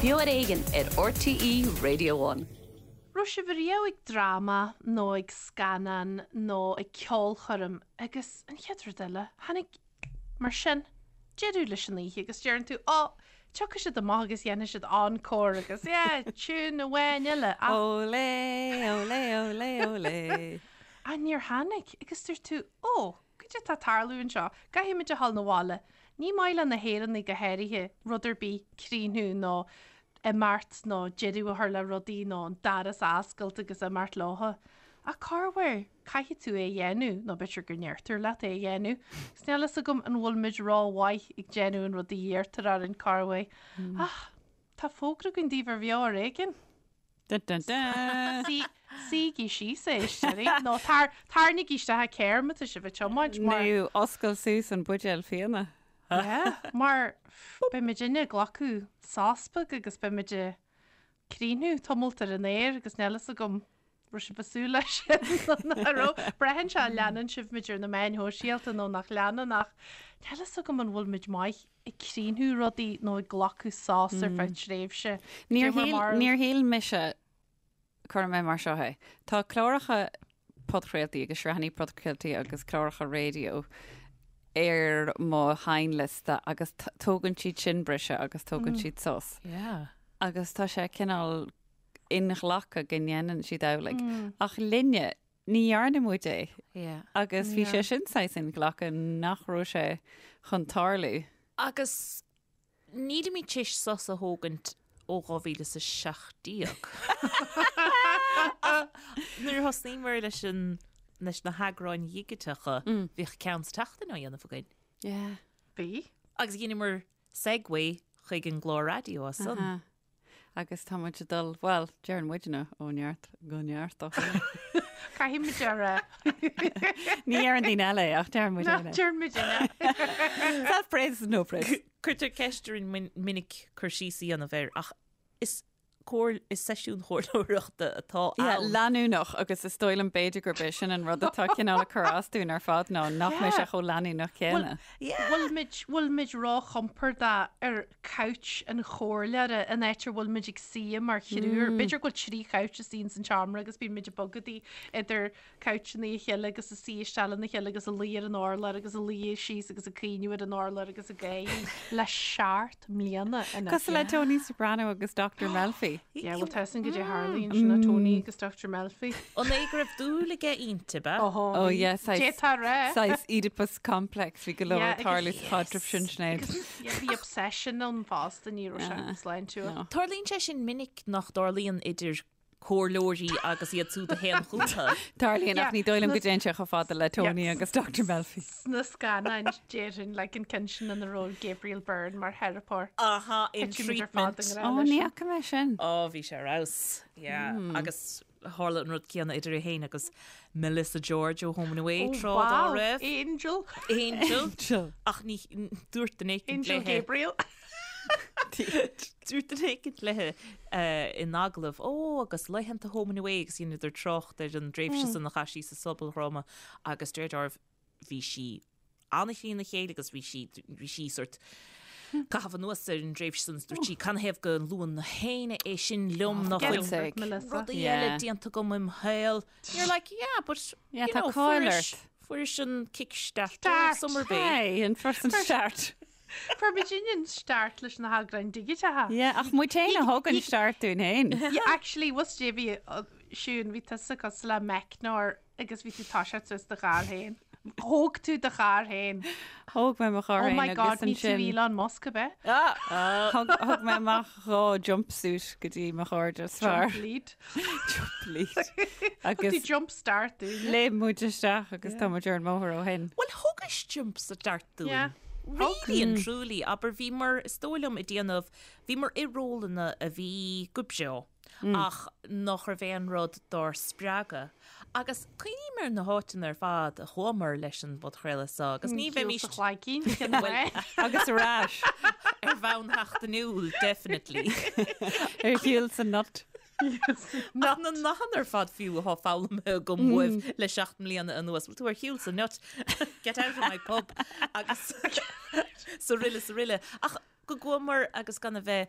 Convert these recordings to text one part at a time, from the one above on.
Beo ar Éigean ar RTÉ Radio One. Raibh sibh ariamh ag dráma nó ag scannán nó ag ceolchoirm agus an chéad rud eile, tháinig, mar sin, deireadh leis an oíche agus deireann tú, Ó, tiocfaidh siad amach agus dhéanfaidh siad encore agus yeah, tune amháin eile ach. Olé, olé, olé, olé. Ach níor tháinig agus dúirt tú, Ó, Goidé tá ag tarlú anseo? Caithfidh muid a dhul 'na bhaile. Ní maith le na hÉireannaigh go háirithe rud ar bith críochnú nó imeacht nó deireadh a chur le rudaí nó an doras a oscailt agus imeacht leotha. Ach corruair, caithfidh tú é a dhéanamh, nó b'fhéidir go ndeirtear leat é a dhéanamh. Agus níl fhios agam an bhfuil muid rómhaith ag déanamh an rud a iarrtar orainn corruair. Ach tá fógra againn daoibh ar Bheo Ar Éigean. Dun dun dun! Suígí síos a éisteoirí, nó tarraingígí isteach an carr má tá sibh ag tiomáint, mar. Nó oscail suas an buidéal fíona. Yeah, mar beidh muidinne ag glacadh sos beag agus beidh muid ag críochnú tamalt ar an aer agus níl fhios agam raibh sibh ag súil leis sin nó nach raibh. Braitheann sé an leanann sibh muid ar na meáin shóisialta nó nach leanann ach níl fhios agam an bhfuil muid maith ag críochnú rudaí nó ag glacadh sos ar feadh tréimhse. Níor shíl, níor shíl mise, cuirfidh mé mar seo é, tá cláracha podchraoltaí agus sraitheanna podchraoltaí agus cláracha raidió ar mo sheinnliosta agus tógann siad sin briseadh agus tógann siad sos. Yeah. Agus tá sé cineál inghlactha go ndéanann siad amhlaidh. Ach linne, Ní dhearna muid é. Yeah. Agus bhí sé sin saghas inghlactha nach raibh sé chun tarlú. Agus nílimid tar éis sos a thógaint ó 2017. Ach nuair a thosnaíomar leis an leis na heagráin dhigiteacha, bhíodh ceann sa tseachtain á dhéanamh againn. Yeah. Bhí. Agus dheineamar segue chuig an gclár raidió as san. Agus tá muid ag dul, bhuel, deireann muidne ó neart go neart ó shin. Caithfidh muid a rá. Ní deireann daoine eile é, ach deireann muid é. Deireann muid é. Self-praise is no praise. Cuirtear ceist orainn minic cur síos a dhéanamh air, ach is comhair, is seisiún comhairleoireachta atá ann. Yeah, leanúnach agus is dóigh liom b'fhéidir gurb é sin an rud atá cineál ag cur as dúinn ar fad ná nach mbeidh sé chomh leanúnach céanna. Bhfuil muid, bhfuil muid róchompordach ar couch an chomhairleora, an áit a bhfuil muid ag suí mar thriúr. B'fhéidir go bhfuil trí chouch istigh ins an tseomra agus bíonn muid ag bogadaí idir couchanna a chéile agus ag suí isteach lena chéile agus ag luí ar an urlár agus ag luí síos agus ag caoineadh ar an urlár agus ag gáirí le seacht mbliana anois. Cosúil le Tony Soprano agus Dr Melfi. Yeah, bhuel tá a fhios againn goidé a tharlaíonn sin le Tony agus Dr Melfi. An é go raibh dúil aige inti, ab ea? Oh yeah, saghas, D'fhéadfá a rá. saghas Oedipus complex, bhí go leor ag tarlú sa chaidreamh sin, Sinéad. Yeah, bhí obsession ann fosta, ní raibh sé sláintiúil. No. Tarlaíonn sé sin minic nach dtarlaíonn idir comhairleoirí agus iad siúd a théann chucu. Tarlaíonn ach ní dóigh liom go dtéann sé chomh fada le Tony agus Dr Melfi. Sna scannáin déarfainn like an ceann sin ina raibh Gabriel Byrne mar theiripeoir. Aha, in Thit muid ar fad i Treatment. ngrá Ó, leis ní sin. fhaca mé sin. Ó, bhí sé ar fheabhas. Yeah, agus tharla an rud céanna idir é féin agus Melissa George ó Home and Away Oh, tráth dá wow, raibh. Angel. Angel. Angel. Ach ní dúirt duine éicint Angel léithe. Gabriel. Dúirt duine éicint léithe in agallamh, Ó, agus laethanta Home and Away agus dheineadar trácht ar an dtréimhse san a chaith sí sa sobaldhráma agus de réir dealraimh bhí sí an-thrína chéile agus bhí sí, bhí sí sort caitheamh anuas ar an dtréimhse san, dúirt sí, canathaobh go luann éinne é sin liom nach Get bhfuil over it, Melissa. rudaí Yeah. eile déanta agam im shaol. You're like, yeah, but Yeah, you tá know, cáil fuairis, ort. fuairis an kick start Start. summer bay. Hey, an first an start. Fuair muidinne an start leis na heagráin dhigiteacha. Yeah, ach muid féin a thug an start dúinn féin. Yeah, actually, was Davy, Siún, bhí tusa cosúil le meicneoir agus bhí tú ag toiseacht suas do charr féin. Thóg tú do charr féin. Thóg mé mo charr Oh féin my God, agus ní tú ansin Elon Musk ab ea? Ah! Thug thug mé amach dhá jumpsuit go dtí mo chairde is fearr. Jump lead. Jump lead. Thug tú Agus jump start dúinn. léim muid isteach agus tá muid ar an mbóthar ó shin. Bhuel, thugais jump start dúinn. Yeah. Really and truly, abair, bhíomar, is dóigh liom, ag déanamh, bhíomar i rólanna a bhí go breá. ach nach raibh aon rud dár spreagadh. Agus cuimhním ar na háiteanna ar fad a chuamar leis an bpodchraoladh seo agus ní bheimis... Sa chlaigín, cén fáth? Agus ar ais. Ar bhonn sheachtainiúil, definitely. Ar shiúl sa nut. Ach na nathanna ar fad fiú atá foghlamtha agam uaibh le 7 mbliana anuas. Bhfuil tú ar shiúl sa nut? Get out of my pub! Agus saraile saraile. Ach. go gcuamar agus gan a bheith,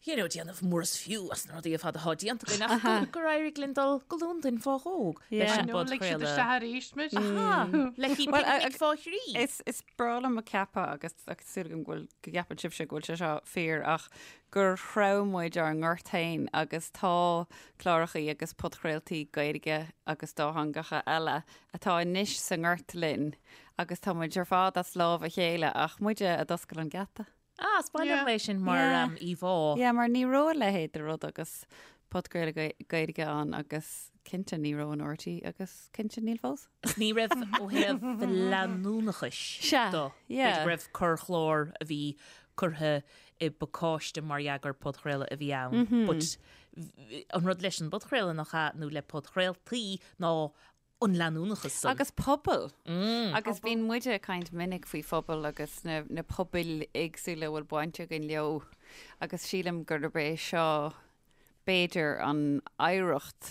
you know, déanamh mór is fiú as na rudaí ar fad atá déanta againn ach go, gur éirigh linn dul go Londain fá dhó leis an No, lig siad bpodchraoladh. isteach arís muid. Aha, le haghaidh Well, picnic fá thrí. Is, is breá liom a ceapadh agus agus súil agam go bhfuil go gceapann sibhse go bhfuil sé seo fíor ach gur threabh muid ár ngort féin agus tá clárachaí agus podchraoltaí Gaeilge agus dátheangacha eile atá anois sa ngort linn agus tá muid ar fad as lámh a chéile ach muide a d'oscail an geata. Ah, is maith liom é sin mar Yeah. íomhá. Yeah, mar ní raibh a leithéid de rud agus podchraoladh Gaeilge ann agus cinnte ní raibh in RTÉ agus cinnte níl fós. Ní raibh ó thaobh leanúnachais Sea, de. yeah. B'fhéidir go raibh corrchlár a bhí curtha i bpacáiste mar dhea gur podchraoladh a bhí ann. But an rud leis an bpodchraoladh nach ea, nó le podchraoltaí ná an leanúnachas san. Agus pobal. Agus bíonn muide ag caint minic faoi phobal agus na, na pobail éagsúla a bhfuil baint againn leo agus sílim gurb é seo b'fhéidir an oidhreacht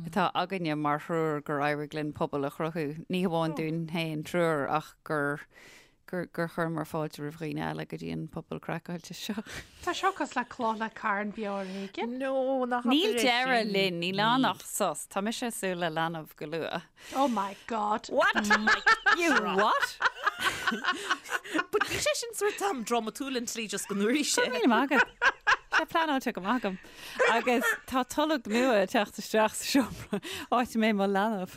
atá againne mar thriúr gur éirigh linn pobal a chruthú, ní hamháin dúinn féin triúr ach gur gur gur chuireamar fáilte roimh dhaoine eile go dtí an pobal craiceáilte seo. Tá seo cosúil le cloch le carn beo ar éigean. No, nach Níl deireadh linn, níl ann ach sos. Tá mise ag súil le leanbh go luath. Oh my God. What? You what? But bhí sé sin sort am drámatúil an tslí just go ndúirt sé. Míle maith agat. Tá pleanáilte go maith agam. Agus tá tolg nua ag teacht isteach sa seomra áit a mbeidh mo leanbh.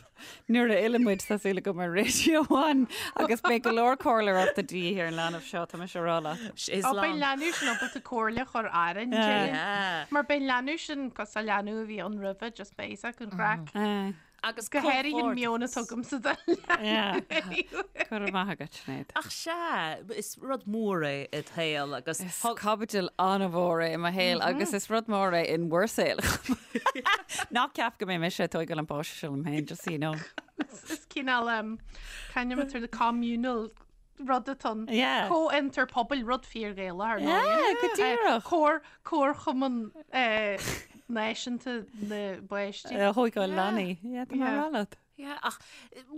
Nuair a fhilleann muid tá súil agam ar Radio One agus beidh go leor comhairleoireachta de dhíth ar an leanbh seo, tá mise a rá leat. Is Ó, beidh lán. leanbh sin ábalta comhairle a chur orainn, déarfainn. Mar beidh leanbh sin cosúil le leanbh a bhí ann roimhe, just beidh a fhios acu an chraic. Agus Go háirithe an meon atá agamsa don leanbh. Go raibh maith agat, Sinéad. Ach sea, is rud mór é i do shaol agus Is caibidil an-mhór é i mo shaol agus is rud mór é in bhur saol. Ná ceap go mbeidh mise ag tógáil an páiste seo liom féin, just so you know. Is cineál kind of the communal rud atá ann. Yeah. Comhfhiontar pobail, rud fíor-Ghaelach ar ndóigh. Yeah, go díreach. Comhar, Comharchumann Náisiúnta na bPáistí. A thógáil leanaí. Yeah, tá mé Yeah. a rá leat. Yeah, ach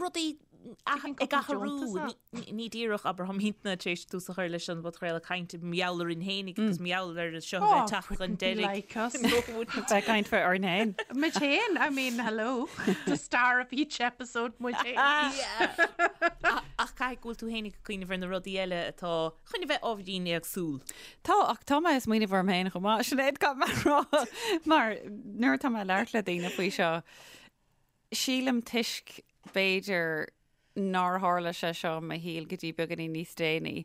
rudaí Taking ag cúpla athrú, deontas ní- ní díreach abair táimidne tar éis tús a chur leis an bpodchraoladh caint mar gheall orainn féinig agus mar gheall ar seo a bheith ag teacht chun wouldn't be deiridh. like us. No, wouldn't. Bheith ag caint faoi orainn féin. Muid féin, I mean, hello. The star of each episode, muid féin. Yeah. Ach caithfidh go bhfuil tú féinig ag cuimhneamh ar na rudaí eile atá chun a bheith ábhairín éagsúil. Tá, ach tá mé ag smaoineamh orm féin chomh maith, Sinéad, caithfidh mé a rá, mar nuair atá mé ag labhairt le daoine faoi seo, sílim toisc, b'fhéidir, nár tharla sé seo i mo shaol go dtí beagáinín níos déanaí,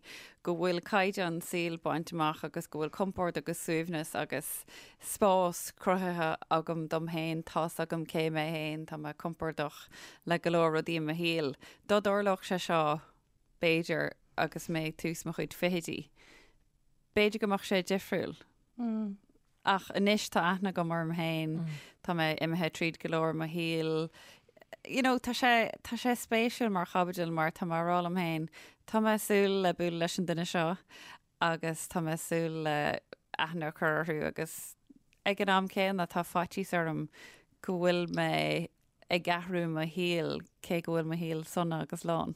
go bhfuil caighdeán saoil bainte amach agus go bhfuil compord agus suaimhneas agus spás cruthaithe agam dom féin, tá's agam cé mé féin, tá mé compordach le go leor rudaí i mo shaol. Dá dtarlódh sé seo, b'fhéidir, agus mé ag tús mo chuid fichidí, b'fhéidir go mbeadh sé difriúil. Ach anois tá aithne agam orm féin, tá mé imithe tríd go leor i mo shaol. You know, tá sé, tá sé spéisiúil mar chaibidil mar tá mé ag rá liom féin, tá mé ag súil le bualadh leis an duine seo agus tá mé ag súil le aithne a chur orthu agus ag an am céanna tá faitíos orm go bhfuil mé ag athrú mo shaoil cé go bhfuil mo shaol sona agus lán.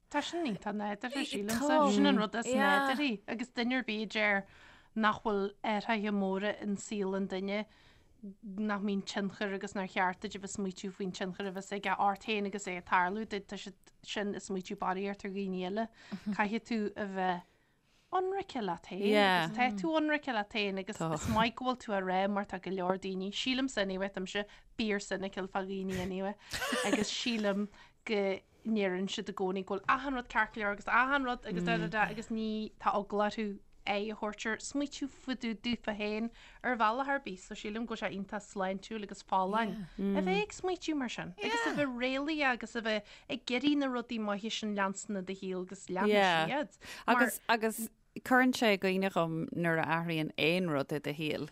Tá sin iontach nádúrtha, sílimse. Tá. Sin an rud is Yeah. nádúrthaí. Agus duine ar bith a deir nach bhfuil athruithe móra in saol an duine, nach mbíonn tionchar agus nár cheart duit a bheith smaoitiú faoin tionchar a bheas aige ort féin agus é ag tarlú duit, tá siad sin ag smaoitiú barraíocht ar dhaoine eile. Caithfidh tú a bheith ionraice leat féin Yeah. agus tá tú ionraice leat féin agus Tá. is maith go bhfuil tú á rá mar tá go leor daoine, sílimse anyway, táimse fíor cynical fá dhaoine anyway, agus sílim go ndeireann siad i gcónaí go bhfuil achan rud ceart go leor agus achan rud agus da da da agus ní tá eagla orthu aghaidh a thabhairt ar smaoitiú fá dtaobh daofa féin ar bhealach ar bith so sílim go bhfuil sé iontach sláintiúil agus folláin a bheith ag smaoitiú mar sin agus a bheith réalaíoch agus a bheith ag iarraidh na rudaí maithe sin leanstan i do shaol agus leanfaidh Yeah. siad. Mar Agus agus cuireann sé i gcuimhne dhom nuair a athraíonn aon rud i do shaol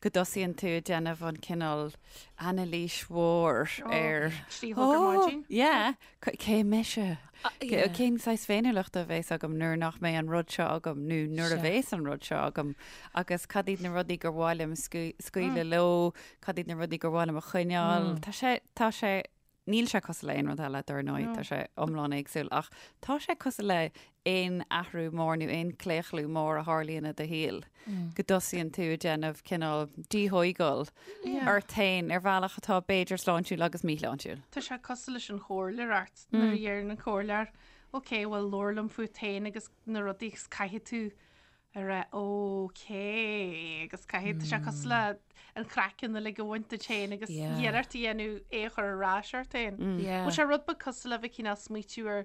go dtosaíonn tú ag déanamh an cineál anailís mhór ar 3 a chlog ar maidin. Yeah, cé mise? yeah. Cén saghas féiniúlachta a bhéas agam nuair nach mbeidh an rud seo agam nó nuair a Sea. bhéas an rud seo agam agus cad iad na rudaí gur mhaith liom scaoileadh leo, cad iad na rudaí gur mhaith liom a choinneáil. Tá sé, tá sé. Níl sé cosúil le aon rud eile, dar ndóigh, tá sé iomlán éagsúil, ach tá sé cosúil le aon athrú mór nó aon claochlú mór a tharlaíonn i do shaol, go dtosaíonn tú ag déanamh cineál díthóigeáil ort féin ar bhealach atá b'fhéidir sláintiúil agus míshláintiúil. Tá sé cosúil leis an chomhairleoireacht, nuair a deireann an comhairleoir, ok, bhuel labhair liom fút féin agus na rudaí agus caithfidh tú a rá ok agus caithfidh, tá sé cosúil le an craiceann uilig a bhaint duit féin agus iarracht a dhéanamh é a chur ar ais ort féin. Bhfuil sé rud beag cosúil le bheith cineál smaoitiú ar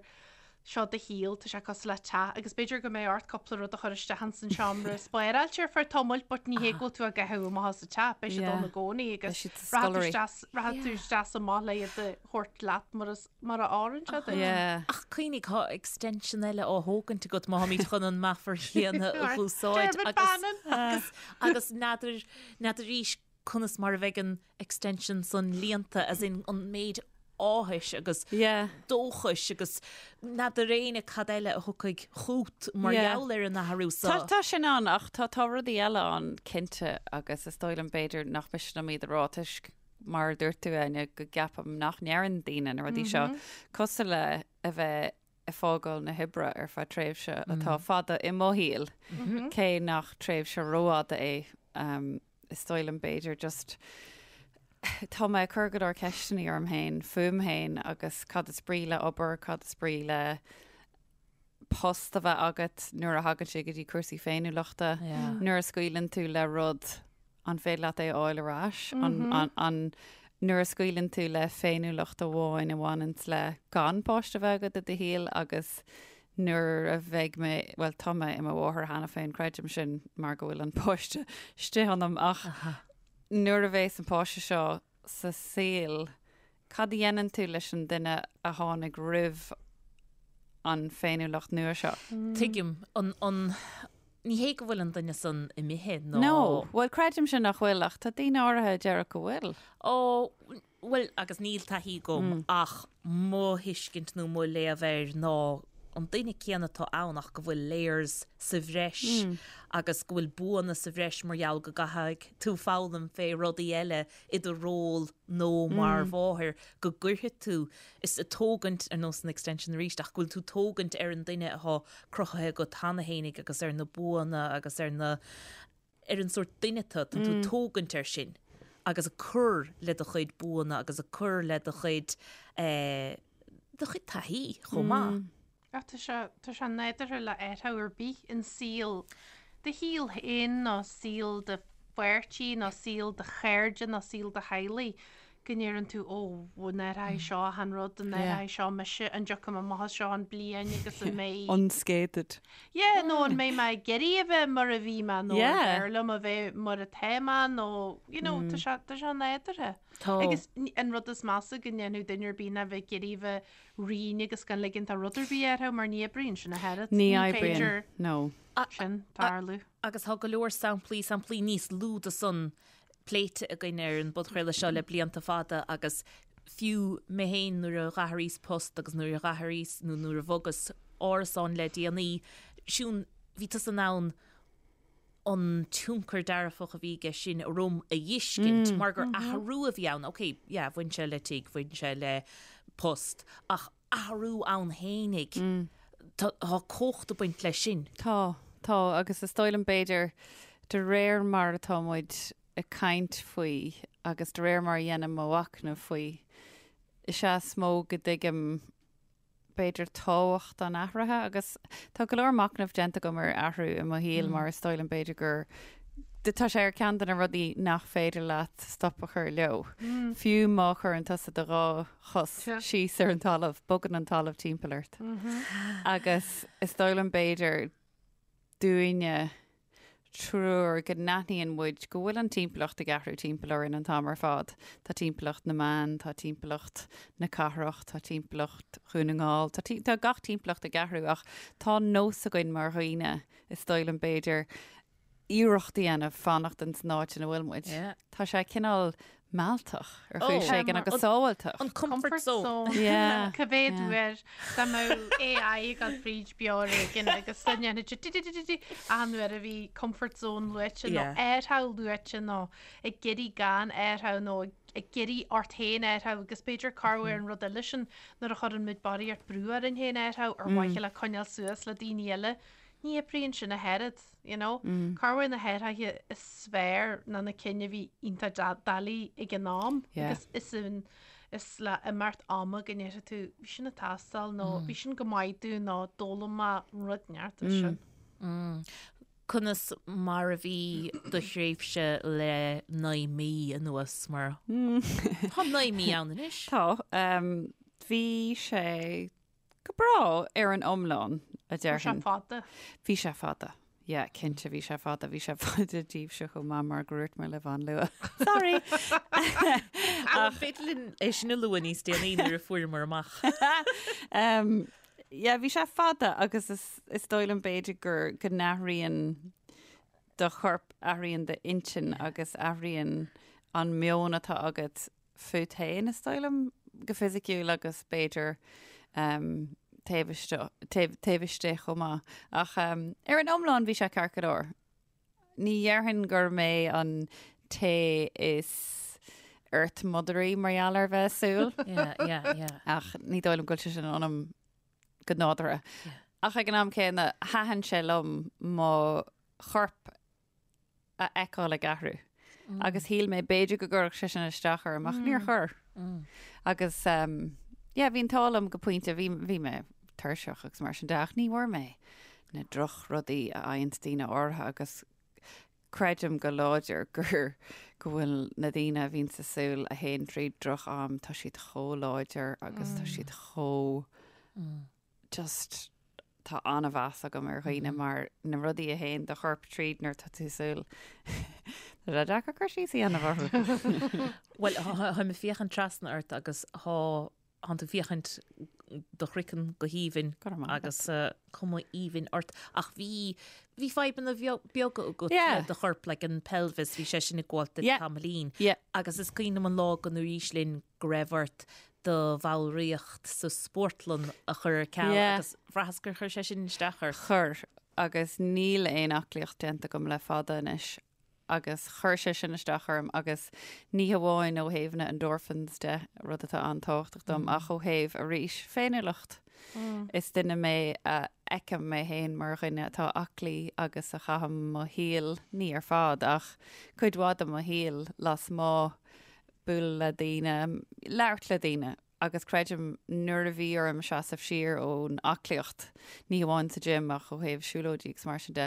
seo do shaol, tá sé cosúil le teach agus b'fhéidir go mbeidh ort cúpla rud a chur isteach ins an seomra spáráilte ar feadh tamaill but ní hé go bhfuil tú á gcaitheamh amach as an teach, beidh siad ann i gcónaí agus rachaidh tú isteach is amach le iad a thabhairt leat mar is mar a oireann sé duit. Ach cuimhnigh, tá extension eile á thógaint agat má tháimid chun an meafar chéanna a dh'úsáid Dermot Bannon! agus agus n'fheadar n'fheadar arís conas mar a bheidh an extension san líonta, as in an méid áthais agus dóchais agus n'fheadar éinne cad eile a thiocfaidh chút mar gheall ar an athrú so. Tá tá sin ann ach tá tá rudaí eile ann cinnte agus is dóigh liom b'fhéidir nach miste liom iad a rá toisc mar a dúirt tú, Áine, go gceapaim nach ndeireann daoine na rudaí seo, cosúil le a bheith ag fágáil na hoibre ar feadh tréimhse atá fada i mo shaol, cé nach tréimhse rófhada é, is dóigh liom b'fhéidir just tá mé ag cur go leor ceisteanna orm féin, fúm féin agus cad is brí le obair, cad is brí le post a bheith agat nuair a thagann sé go dtí cúrsaí féiniúlachta, nuair a scaoileann tú le rud, an féidir leat é a fháil ar ais? An nuair a scaoileann tú le féiniúlacht amháin a bhaineanns le gan páiste a bheith agat i do shaol agus nuair a bheidh mé, bhuel tá mé i mo mháthair cheana féin, creidim sin mar go bhfuil an páiste istigh ionam ach nuair a bheas an páiste seo sa saol, Cad a dhéanann tú leis an duine a tháinig roimh an féiniúlacht nua seo? Tuigim. An, an, ní hé go bhfuil an duine san imithe nó. No. Bhuel, creidimse nach bhfuil, ach tá daoine áirithe a déarfadh go bhfuil. Ó, bhuel, agus níl taithí agam ach mo thuiscint nó mo léamh air ná an duine céanna atá ann ach go bhfuil layers sa bhreis agus go bhfuil buanna sa bhreis mar gheall go gcaithfidh tú foghlaim fé rudaí eile i do ról nó mar mháthair go gcuirfidh tú, is ag tógaint, ar nós an extension arís, ach go bhfuil tú tógaint ar an duine atá cruthaithe agat cheana fhéinig agus ar na buanna agus ar na, ar an sórt duine tú, tá tú ag tógaint air sin agus ag cur le do chuid buanna agus ag cur le do chuid, eh, do chuid taithí chomh maith. Ach tá sé, tá sé nádúrtha le athrú ar bith in saol, do shaol féin nó saol do pháirtí nó saol do chairde nó saol do theaghlaigh, go ndeireann tú, ó, an athróidh seo achan rud, an athróidh seo mise, an dtiocfaidh mé amach as seo an bliain agus an mbeidh. Unscathed. Yeah, nó an mbeidh mé ag iarraidh a bheith mar a bhí mé nó an bhfearr liom a bheith mar atá mé nó, you know, tá sé, tá sé nádúrtha. Tá. Agus an rud is measa go ndéanfadh duine ar bith ná bheith ag iarraidh a bheith righin agus gan ligint do rud ar bith athrú mar ní oibríonn sin ach oiread. Ní oibríonn, no. Sin tarlú. Agus tá go leor samplaí, samplaí níos lú de san pléite againn ar an bpodchraoladh seo le blianta fada agus fiú mé féin nuair a dh'athraíos post agus nuair a dh'athraíos nó nuair a bhogas árasán le déanaí, Siún, bhí tusa in ann an tionchar dearfach a bhí aige sin orm a fheiscint mar gur athrú a bhí ann. Ok, yeah, bhain sé le tigh, bhain sé le post, ach athrú ann fhéinig, tá cumhacht ag baint leis sin. Tá, tá, agus is dóigh liom b'fhéidir de réir mar atá muid ag caint faoi agus de réir mar a dhéanaim mo mhachnamh faoi, is ea is mó go dtuigim b'fhéidir, tábhacht an athraithe agus tá go leor machnaimh déanta agam ar athrú i mo shaol mar is dóigh liom b'fhéidir gur tá sé ar ceann de na rudaí nach féidir leat stop a chur leo. Fiú má chuireann tusa do dhá chos síos ar an talamh, bogann an talamh timpeall ort. Agus is dóigh liom b'fhéidir dúinne triúr go n-aithníonn muid go bhfuil an timpeallacht ag athrú timpeall orainn an t-am ar fad. Tá timpeallacht na meán, tá timpeallacht na cathrach, tá timpeallacht Dhún na nGall, tá, tá gach timpeallacht ag athrú ach tá nós againn mar dhaoine, is dóigh liom b'fhéidir, iarracht a dhéanamh fanacht in san áit ina bhfuil muid. Tá sé cineál mealltach ar chúis éigin agus sábháilteach. An comfort zone. Yeah. Cá mhéad uair dá mbeadh AI ag dul fríd beo ar éigin agus dá ndéanfadh sé di-di-di-di-di achan uair a bhí comfort zone luaite nó athrú luaite nó ag iarraidh gan athrú nó ag iarraidh ort féin athrú agus b'fhéidir corruair an rud eile sin nuair a chuireann muid barraíocht brú orainn féin athrú ar mhaithe le coinneáil suas le daoine eile. Ní oibríonn sin ach oiread, you know. Corruair na hathruithe is fearr ná na cinn a bhí iontach doiligh ag an am. Agus is in, is le imeacht ama go ndéarfaidh tú, bhí sin ag teastáil nó bhí sin go maith dom nó d'fhoghlaim mé rud inteacht as sin. Conas mar a bhí do thréimhse le 9 mí anuas mar tá 9 mí ann anois? Tá. Bhí sé Go breá ar an iomlán, a Bhí sé déarfainn. fada. Bhí sé fada. Yeah, cinnte bhí sé fada. Bhí sé fada daoibhse chomh maith mar gur dhúirt mé libh an-luath. Sorry! Ach an féidir linn é sin a lua níos déanaí nuair a fuaireamar amach? Um, yeah, bhí sé fada agus is, is dóigh liom b'fhéidir gur go n-athraíonn do chorp, athraíonn d'intinn agus athraíonn an meon atá agat fút féin, is dóigh liom, go fisiciúil agus b'fhéidir taobh istigh, taobh istigh chomh maith. Ach ar an iomlán bhí sé ceart go leor. Ní dhéarfainn gur mé an té is earth-motheraí mar gheall ar bheith ag súil. Yeah, yeah, yeah. Ach ní dóigh liom go bhfuil sé sin ionam go nádúrtha. Ach ag an am céanna, thaitin sé liom mo chorp a fheiceáil ag athrú. Agus shíl mé b'fhéidir go gcuirfeadh sé sin isteach orm ach níor chuir. Agus yeah, bhí an t-ádh liom go pointe, bhí, bhí mé tuirseach agus mar sin de ach ní bhfuair mé na drochrudaí a fhaigheanns daoine áirithe agus creidim go láidir gur go bhfuil na daoine a bhíonns ag súil a théann tríd droch-am, tá siad chomh láidir agus tá siad chomh just tá an-mheas agam ar dhaoine mar na rudaí a théann do chorp tríd nuair atá tú ag súil. Tá sé deacair cur síos a dhéanamh orthu. Bhuel, táim ag féachaint trasna ort agus tá tánn tú ag féachaint do chraiceann go haoibhinn agus cuma aoibhinn ort. Ach bhí bhí fadhbanna beaga agat le do chorp, like an pelvis, bhí sé sin ag gabháil duit tamaillín. Agus is cuimhin liom an lá go ndúraís linn go raibh ort do bhallraíocht sa spórtlann a chur ar ceal agus bhraitheas gur chuir sé sin isteach ort. Chuir, agus níl aon aclaíocht déanta agam le fada anois agus chuir sé sin isteach orm agus ní hamháin ó thaobh na endorphins de, rud atá an-tábhachtach dom, ach ó thaobh, arís, féiniúlacht. Is duine mé a fheicim mé féin mar dhuine atá aclaí agus a chaithim mo shaol, ní ar fad, ach cuid mhaith de mo shaol lasmuigh, bualadh le daoine, labhairt le daoine agus creidim nuair a bhí orm seasamh siar ón aclaíocht, ní hamháin sa gym ach ó thaobh siúlóidí agus mar sin de,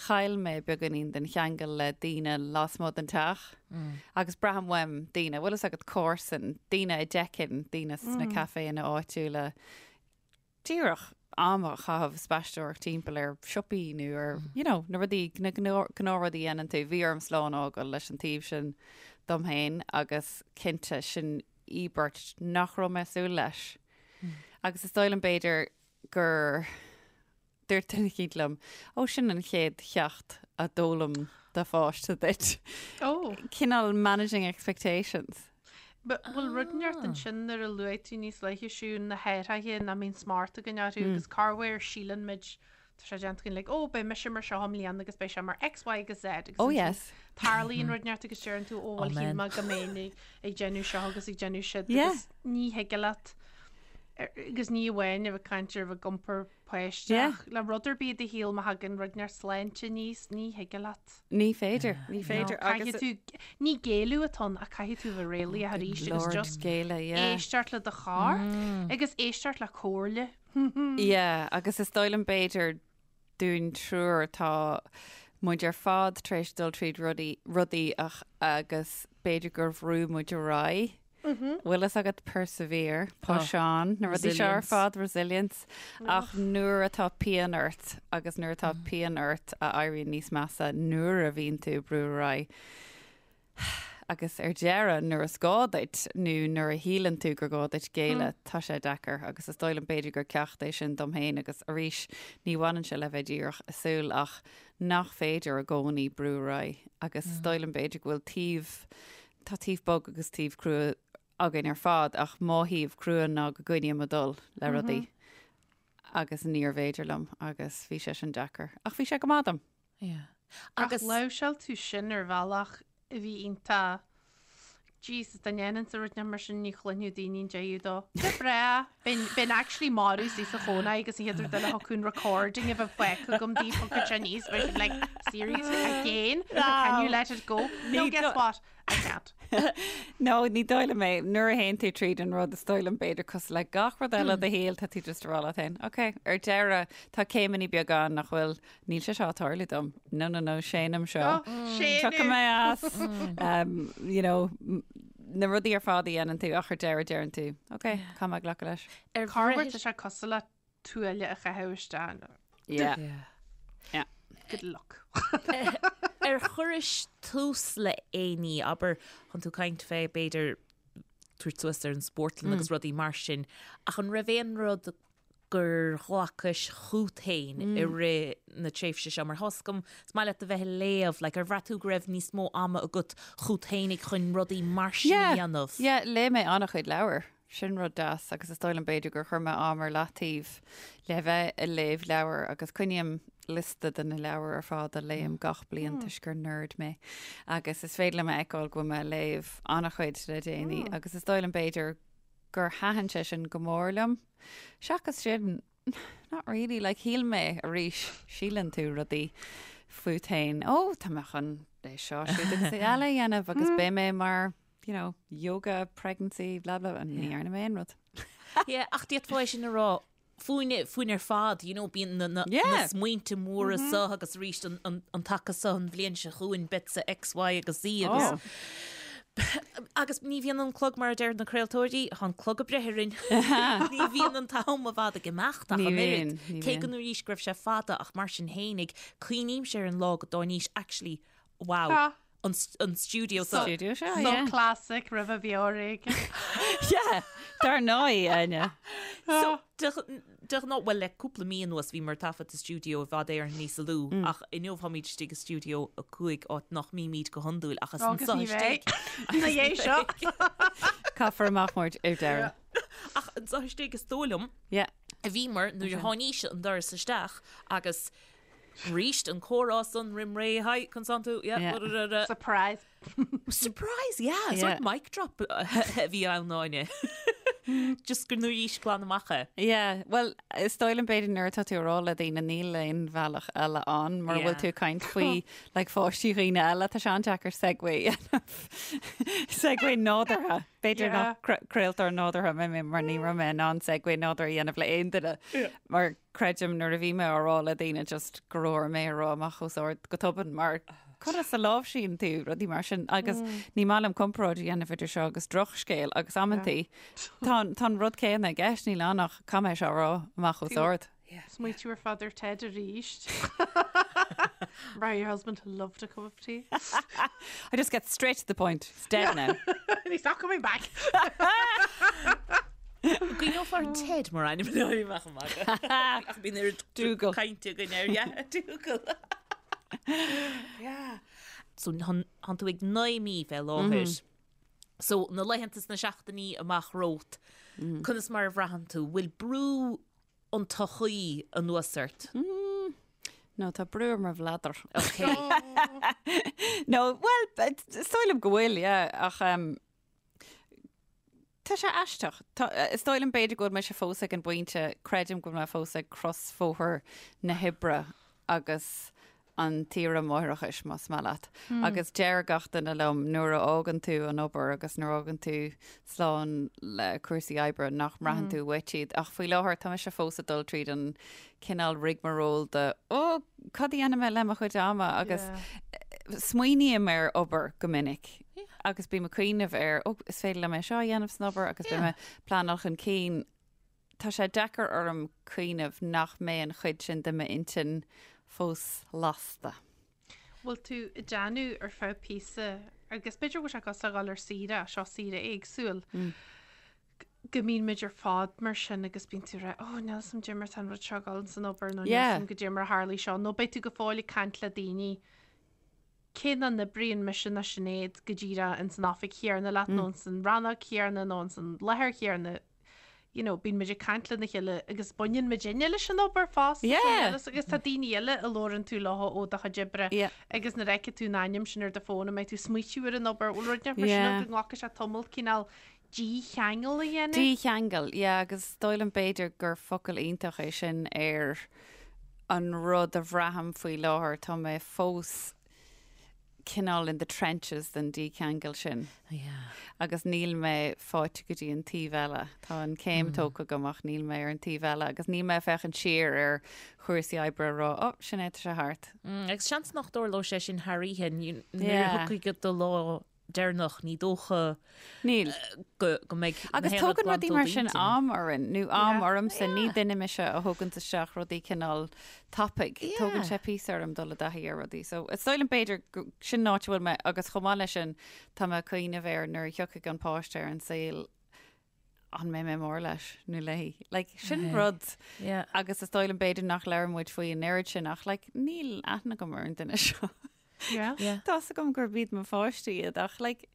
chaill mé beagáinín den cheangal le daoine lasmuigh den teach agus braithim uaim daoine, bhfuil fhios agat, comharsan, daoine a d'fheicfinn, daoine sna caiféanna áitiúla, díreach am a chaitheamh spaisteoireacht timpeall ar siopaí nó ar, you know, na rudaí, na gnáthrudaí a dhéanann tú. Bhí orm slán a fhágáil leis an taobh sin dom féin agus cinnte sin íobairt nach raibh mé ag súil leis. Agus is dóigh liom b'fhéidir gur dúirt duine eicínt liom, ó sin an chéad cheacht a d'fhoghlaim do pháiste duit. Ó. Cineál managing expectations. Bhfuil rud inteacht ansin nuair a luaigh tú níos luaithe Siún na hathruithe nach mbíonn smacht againn orthu agus corruair síleann muid tá sé déanta againn like ó beidh mise mar seo i mbliana agus beidh sé mar X, Y agus Z agus Oh yes. tarlaíonn rud inteacht agus deireann tú ó bhuel shíl mé go mbeinn ag déanamh seo agus ag déanamh siúd agus ní thig leat agus ní amháin a bheith ag caint ar bheith ag iompar páiste ach le rud ar bith i do shaol má thagann rud inteacht sláinte aníos ní thig leat. Ní féidir, ní féidir. Caithfidh tú, ní géilleadh atá ann ach caithfidh tú bheith réalaíoch arís agus just géilleadh, yeah. éisteacht le do chorp agus éisteacht le comhairle. Yeah, agus is dóigh liom b'fhéidir dúinn triúr tá muid ar fad tar éis dul tríd rudaí, rudaí ach agus b'fhéidir gur bhrú muid ar aghaidh. Bhfuil fhios agat persevere, push on, na rudaí seo ar fad, resilience. Ach nuair atá pian ort agus nuair atá pian ort a éiríonn níos measa nuair a bhíonn tú ag brú ar aghaidh agus ar deireadh nuair is gá duit nó nuair a shíleann tú gur gá duit géilleadh, tá sé deacair agus is dóigh liom b'fhéidir gur ceacht é sin dom féin agus arís ní bhaineann sé le bheith díreach ag súil ach nach féidir i gcónaí brú ar aghaidh agus is dóigh liom b'fhéidir go bhfuil taobh. tá taobh bog agus taobh crua againn ar fad ach mo thaobh crua ná go gcoinním ag dul le rudaí agus níorbh fhéidir liom agus bhí sé sin deacair. Ach bhí sé go maith dom. Yeah. Ach láimhseáil tú sin ar bhealach a bhí iontach Jesus, dá ndéanfainnse rud mar sin ní chluinfeadh daoine an deireadh dó. Go breá! Bheinn actually marbh istigh sa chónaí agus an chéad rud eile thiocfadh an recording a bheith fágtha agam daoibh thiocfadh sé aníos bheadh siad like seriously again? Can you let it go? No, guess what? I can't. No, ní dóigh liom é. Nuair a théann tú tríd an rud, is dóigh liom b'fhéidir cosúil le gach rud eile i do shaol, tá tú just ag rá leat féin, ok, ar deireadh, tá céimeanna beaga ann nach bhfuil, níl sé seo ag tarlú dom. No, no, no, séanaim seo. Tiocfaidh mé as, um, you know, na rudaí ar fad a dhéanann tú ach ar deireadh deireann tú, ok, caithfidh mé glacadh leis. Ar Corruair tá sé cosúil le tuaille a chaitheamh isteach. Yeah. Yeah. Good luck. Ar chuiris tús le aon ní, abair, chun tú caint fé, b'fhéidir, tabhairt suas ar an spórtlann agus rudaí mar sin, ach an raibh aon rud gur ghlacais chút féin i rith na tréimhse seo? Mar tá's agam, is maith leat a bheith ag léamh, like, ar bhraith tú go raibh níos mó ama agat chút féinig chun rudaí mar sin a dhéanamh? Yeah, léigh mé an-chuid leabhar. Sin rud deas agus is dóigh liom b'fhéidir gur chuir mé am ar leataobh le bheith ag léamh leabhar agus coinním liosta de na leabhair ar fad a léim gach bliain toisc gur nerd mé agus is féidir liom a fheiceáil go bhfuil mé ag léamh an-chuid le déanaí agus is dóigh liom b'fhéidir gur thaitin sé sin go mór liom. Seachas sin, not really, like shíl mé arís, síleann tú rudaí fút féin, ó tá mé chun é seo, siúd agus é eile a dhéanamh agus beidh mé mar, you know, yoga, pregnancy, blah blah, and ní dhearna mé aon rud. Yeah, ach d'fhéadfá é sin a rá fúinn, fúinn ar fad, you know, bíonn na, na, Yeah. na smaointe móra seo agus arís an, an, an taca seo an bhliain seo chugainn, beidh X, Y agus Z agus Oh. Agus ní bhíonn an clog mar a deir na craoltóirí, tá an clog ag breith orainn. Ní bhíonn an t-am i bhfad ag imeacht ach Ní an oiread. bhíonn, ní Cé go bhíonn. arís go raibh sé fada ach mar sin fhéinig, cuimhnímse ar an lá go dtáinís actually, wow, Tá. an, an stiúideo So- Stiúideo seo, So yeah. classic roimh a bheor éigin. Yeah, dar ndóigh, Áine. So, de de ghnáth, bhuel le cúpla mí anuas bhíomar ag taifead sa stiúideo i bhfad Éireann níos lú ach inniu táimid istigh i stiúideo 5 áit nach mbímid go hiondúil ach is Agus anseo ní istigh. bheidh. Ina dhiaidh seo. Caithfear amach muid ar deireadh. Ach anseo istigh is dóigh liom Yeah. a bhíomar nuair a tháinís an doras isteach agus Arís an comhrá san roim ré, hi, conas tánn tú, yeah, Yeah. ra, ra, ra. Surprise. Surprise, yeah, Yeah. sort mic drop a bhí ann Áine. Just gur nuair glan amach é. Yeah, well, is dóigh liom b'fhéidir nuair atá tú ag rá le daoine níl aon bhealach eile ann mar bhfuil Yeah. tú ag caint faoi like, pháistí dhaoine eile, tá sé an-deacair segue a dhéanamh. Segue nádúrtha. B'fhéidir Yeah. nach cra- craoltóir nádúrtha mé mé mar ní raibh mé in ann segue nádúrtha a dhéanamh le aon duine. Mar Creidim nuair a bhí mé á rá le daoine just go raibh orm é a rá amach os ard go tobann mar conas a láimhsíonn tú rudaí mar sin agus ní maith liom comparáid a dhéanamh idir seo agus drochscéal agus amantaí tá tá an rud céanna i gceist níl ann ach caithfidh mé seo a rá amach os ard. Smaoitiú ar fad ar Ted arís. Right, your husband loved a cup of tea. I just get straight to the point. It's dead now. And he's not coming back. Cuimhneofar ar Ted mar ainm le amach amach. Ach bíonn ar Dougal. Cainte go air, yeah, Dougal. Yeah. So tánn tú ag 9 mí fé láthair. So na laethanta is na seachtainí amach romhat, conas mar a bhraitheann tú? Bhfuil brú an tsochaí anuas ort? No, tá brú ar mo bhladar. Ok. No, well, is dóigh liom go bhfuil, yeah, ach um, Tá sé aisteach. Tá, is dóigh liom b'fhéidir go bhfuil mise fós ag an bpointe, creidim go bhfuil mé fós ag crosbhóthar na hoibre agus an tsaoire máithreachais, más maith leat. Agus deir gach duine liom nuair a fhágann tú an obair agus nuair a fhágann tú slán le cúrsaí oibre nach mbraitheann tú uait iad. Ach faoi láthair tá mise fós ag dul tríd an cineál rigmarole de ó, cad a dhéanfaidh mé le mo chuid ama agus smaoiním ar obair go minic. Agus bím ag cuimhneamh ar, ó, is féidir liom é seo a dhéanamh san obair agus beidh mé pleanáil chun cinn. Tá sé deacair orm cuimhneamh nach mbeidh an chuid sin de m'intinn fós lasta. Bhfuil tú ag déanamh ar feadh píosa, agus b'fhéidir go bhfuil sé cosúil le dhul ar saoire, seo saoire éagsúil, go mbíonn muid ar fad mar sin agus bíonn tú ag rá, oh, níl 'fhios a'm goidé mar tá an rud seo ag dul san obair nó níl 'fhios a'm goidé mar a tharlaigh seo, nó beidh tú go fóill ag caint le daoine. Cé nach n-oibríonn mise ná Sinéad go díreach ins an oifig chéanna leat nó ins an rannóg chéanna nó ins an láthair chéanna, you know, bíonn muid ag caint lena chéile agus baineann muidinne leis an obair fosta Yeah. agus tá daoine eile a labhrann tú leo ó do chuid oibre Yeah. agus nuair a fheicfidh tú an ainm sin ar do fón an mbeidh tú ag smaoitiú ar an obair, bhfuil rud inteacht mar sin Yeah. ann go nglacfaidh sé tamall cineál dícheangal a dhéanamh? Dícheangal, yeah, agus is dóigh liom b'fhéidir gur focal iontach é sin ar an rud a bhraithim faoi láthair, tá mé fós cineál in the trenches den dícheangal sin. Yeah. Agus níl mé faighte go dtí an taobh eile. Tá an céim tógtha agam ach níl mé ar an taobh eile agus níl mé ag féachaint siar ar chúrsaí oibre a rá, oh, sin é, tá sé thart. Mm, agus seans nach dtarlóidh sé sin thar oíche, nuair a Yeah. thiocfaidh do lá deireanach, ní dócha Níl. go go mbeidh na Agus haon rud tógann rudaí glanta ó mar sin d'intinn. am orainn, nó am Yeah. ormsa, ní duine mise a thóganns isteach rudaí cineál tapaidh. Yeah. Tógann sé píosa orm dul i dtaithí ar rudaí. So is dóigh liom b'fhéidir go- sin an áit a bhfuil mé agus chomh maith leis sin tá mé ag cuimhneamh ar nuair a thiocfaidh an páiste ar an saol an mbeidh mé mór leis nó léi. Like, sin rud Yeah. agus is dóigh liom b'fhéidir nach labhrann muid faoi an oiread sin ach like, níl aithne agam ar an duine seo. Yeah. Yeah. Tá's agam gurb iad mo pháistí iad ach like,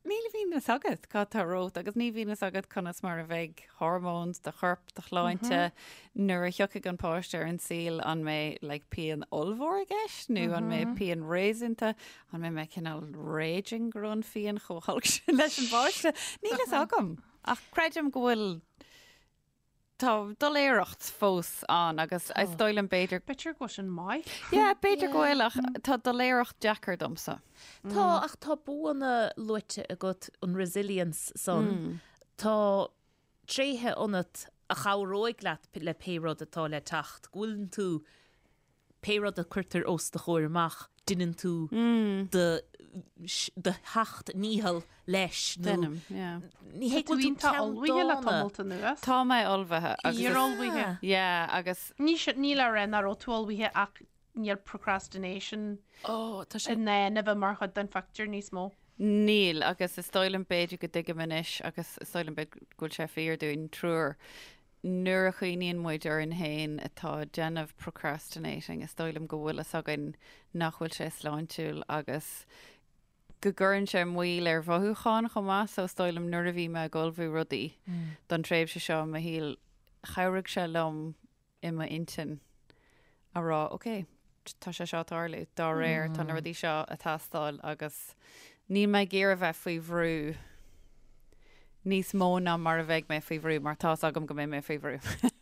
níl a fhios agat cad tá romhat agus ní bhíonn a fhios agat conas mar a bheidh hormones do chorp, do shláinte nuair a thiocfaidh an páiste ar an saol an mbeidh like, pian ollmhór i gceist nó an mbeidh pian réasúnta, an mbeidh mé cineál raging go raibh an phian chomh holc sin leis an bpáiste. Níl a fhios agam ach creidim go bhfuil Tá doiléireacht fós ann agus is dóigh liom b'fhéidir. B'fhéidir go bhfuil sin maith. Yeah, b'fhéidir go bhfuil ach tá doiléireacht deacair domsa. Tá, ach tá buanna luaite agat, an resilience san. Tá tréithe ionat a chabhróidh leat le pé rud atá le teacht, go bhfuileann tú pé rud a cuirtear os do chomhair amach, deineann tú do do sheacht ndícheall leis nó Deinim, yeah. ní hé go Tá tú bhfuil tú iontach ullmhaithe le ceanndána. tamalt anuas. Tá mé ullmhaithe agus is- Fíor-ullmhaithe. Yeah, agus Ní sin, ní le rá nach raibh tú ullmhaithe ach níl procrastination Ó, tá sé in ann a bheith mar chuid den phictiúr níos mó. Níl, agus is dóigh liom b'fhéidir go dtuigim anois agus is dóigh liom b'fhéidir go bhfuil sé fíor dúinn triúr, Nuair a chuimhníonn muid orainn féin atá ag déanamh procrastinating, is dóigh liom go bhfuil fhios againn nach bhfuil sé sláintiúil agus go gcuireann sé moill ar mhothúcháin chomh maith. So is dóigh liom nuair a bhí mé ag ullmhú rudaí don tréimhse seo i mo shaol, chabhraigh sé liom i m'intinn a rá, ok, tá sé seo ag tarlú, dá réir tá na rudaí seo ag teastáil agus níl mé ag iarraidh bheith faoi bhrú níos mó ná mar a bheidh mé faoi bhrú mar tá's agam go mbeidh mé faoi bhrú.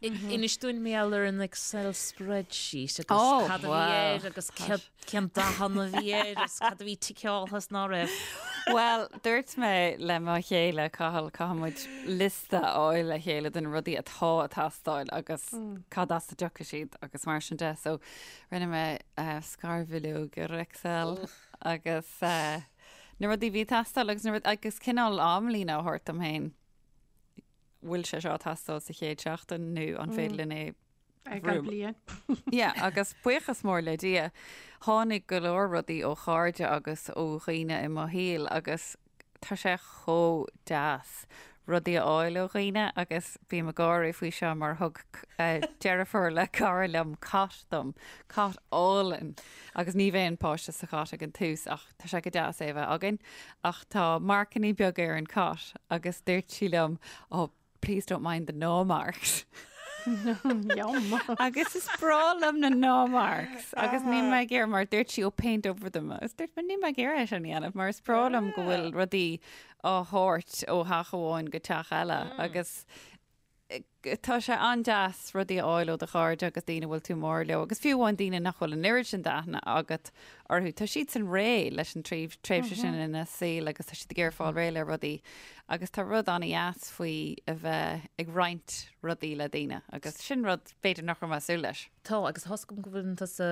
Inis dúinn mar gheall ar an Excel spreadsheet agus Oh, cad a bhí wow. air agus cén dath a bhí air agus cad a bhí ticeáilte is ná raibh. Bhuel, dúirt mé le mo chéile, Cathal, caithfidh muid liosta a fháil le chéile de na rudaí atá ag teastáil agus cad as a dtiocfaidh siad agus mar sin de. So rinne mé scarbhileog ar Excel agus na rudaí a bhí ag teastáil agus na rud agus cineál amlíne a thabhairt dom féin. Bhfuil sé seo ag teastáil sa chéad seachtain nó an féidir linn é Ag an bliain. Yeah, agus buíochas mór le Dia, tháinig go leor rudaí ó chairde agus ó dhaoine i mo shaol agus tá sé chomh deas rudaí a fháil ó dhaoine agus bím ag gáire faoi seo mar thug deirfiúr le cara liom cot dom, cot álainn agus ní bheidh an páiste sa chot ag an tús ach tá sé go deas é a bheith againn ach tá marcannaí beaga ar an cot agus dúirt sí liom, oh, Please don't mind the gnaw marks. Yum. Agus is breá liom na gnaw marks. Agus níl mé ag iarraidh mar dúirt sí oh paint over them. Agus dúirt mé níl mé ag iarraidh é sin a dhéanamh mar is breá liom go bhfuil rudaí á thabhairt ó theach amháin go teach eile. Agus tá sé an-deas rudaí a fháil ó do chairde agus daoine a bhfuil tú mór leo agus fiú amháin daoine nach bhfuil an oiread sin d'aithne agat orthu. Tá siadsan réidh leis an tréimhse sin ina saol agus tá siad ag iarraidh fáil réidh le rudaí agus tá rud an-dheas faoi a bheith ag roinnt rudaí le daoine agus sin rud b'fhéidir nach raibh mé ag súil leis. Tá, agus tá's agam go bhfuil tusa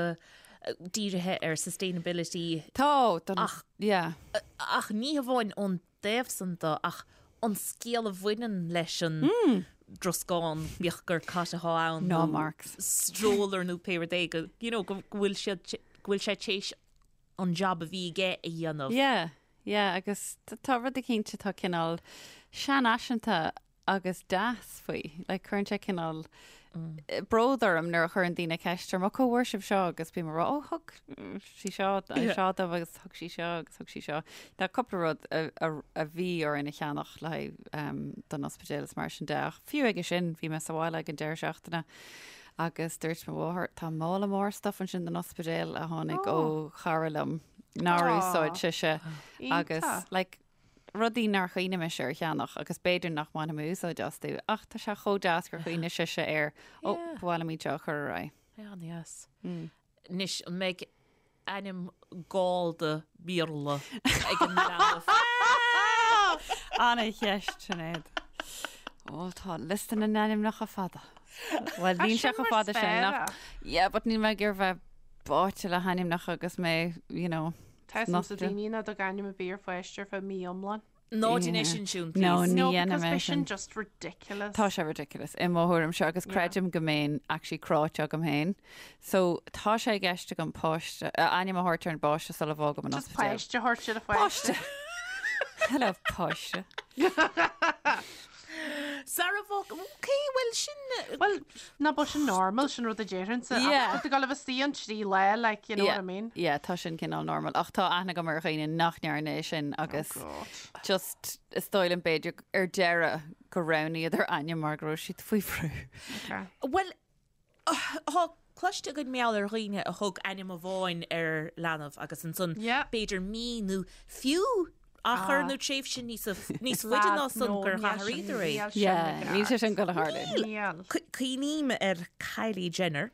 dírithe ar sustainability. Tá, don, Ach- yeah. Ach ní hamháin ón dtaobh san de ach an scéal a bhaineann leis an dtroscán, bíodh gur cat atá ann Gnaw nó marks. stroller nó pé rud é, go, you know, go bhfuil siad, go bhfuil sé tar éis an job a bhí aige a dhéanamh. Yeah, yeah, agus tá rud eicínt atá cineál seanfhaiseanta agus deas faoi. Like, cuireann sé cineál. bród orm nuair a chuireann daoine ceist orm, 'Ó, cá bhfuair sibh seo?' agus bím ag rá, 'Ó, thug sí seo seo domh agus thug sí seo agus thug sí seo. Tá cúpla rud a bhí orainn a cheannach le haghaidh don ospidéal is mar sin de ach fiú aige sin bhí mé sa bhaile ag an deireadh seachtaine agus dúirt mo mháthair, 'Tá mála mór stuff ansin don ospidéal a tháinig ó chara liom nár úsáid sise agus like, rudaí nár chuimhnigh mise ar cheannach agus b'fhéidir nach mbainfidh mé úsáid astu ach tá sé chomh deas gur chuimhnigh sise air, ó, ba mhaith liom iad seo a chur ar aghaidh. An-deas. Anois, an mbeidh ainm gallda Béarla ag an leanbh? Ana-cheist, Sinéad. Ó, tá liosta na n-ainmneacha fada. Bhuel, níl sé chomh fada sin ach, yeah, but níl mé ag iarraidh bheith báite le hainmneacha agus mé, you know, Tá fhios ag daoine ná dug ainm ar bith ar pháiste ar feadh mí iomlán. Ná déan é sin, Siún, No, please. ní No, dhéanfaidh because mé beidh sin sin. just ridiculous. Tá sé ridiculous i mo thuairimse agus creidim go mbeinn actually cráite agam féin. So tá sé i gceist agam páiste, ainm a thabhairt ar an bpáiste sula bhfágaim an Just ospidéal. páiste a thabhairt ar a pháiste. Páiste! Hello, páiste. Sara bhfág, ok, bhuel sin... Bhuel, ná b'é sin normal, sin rud a déarfainnse. Yeah. Ach tá tú ag dul a bheith istigh ann trí lá, like, you know what I mean? Yeah, tá sin cineál normal. Ach tá aithne agam ar dhaoine nach ndearna é sin agus Oh God. just is dóigh liom b'fhéidir ar deireadh gur roghnaíodar ainm mar go raibh siad faoi bhrú. Okay. Bhuel, Tá cloiste againn mar gheall ar dhaoine a thug ainm amháin ar leanbh agus ansan b'fhéidir mí nó fiú achar nó tréimhse níos níos faide ná san gur athraíodar é. Níl sé sin ag dul a tharlú. Níl. Cuimhním ar Kylie Jenner,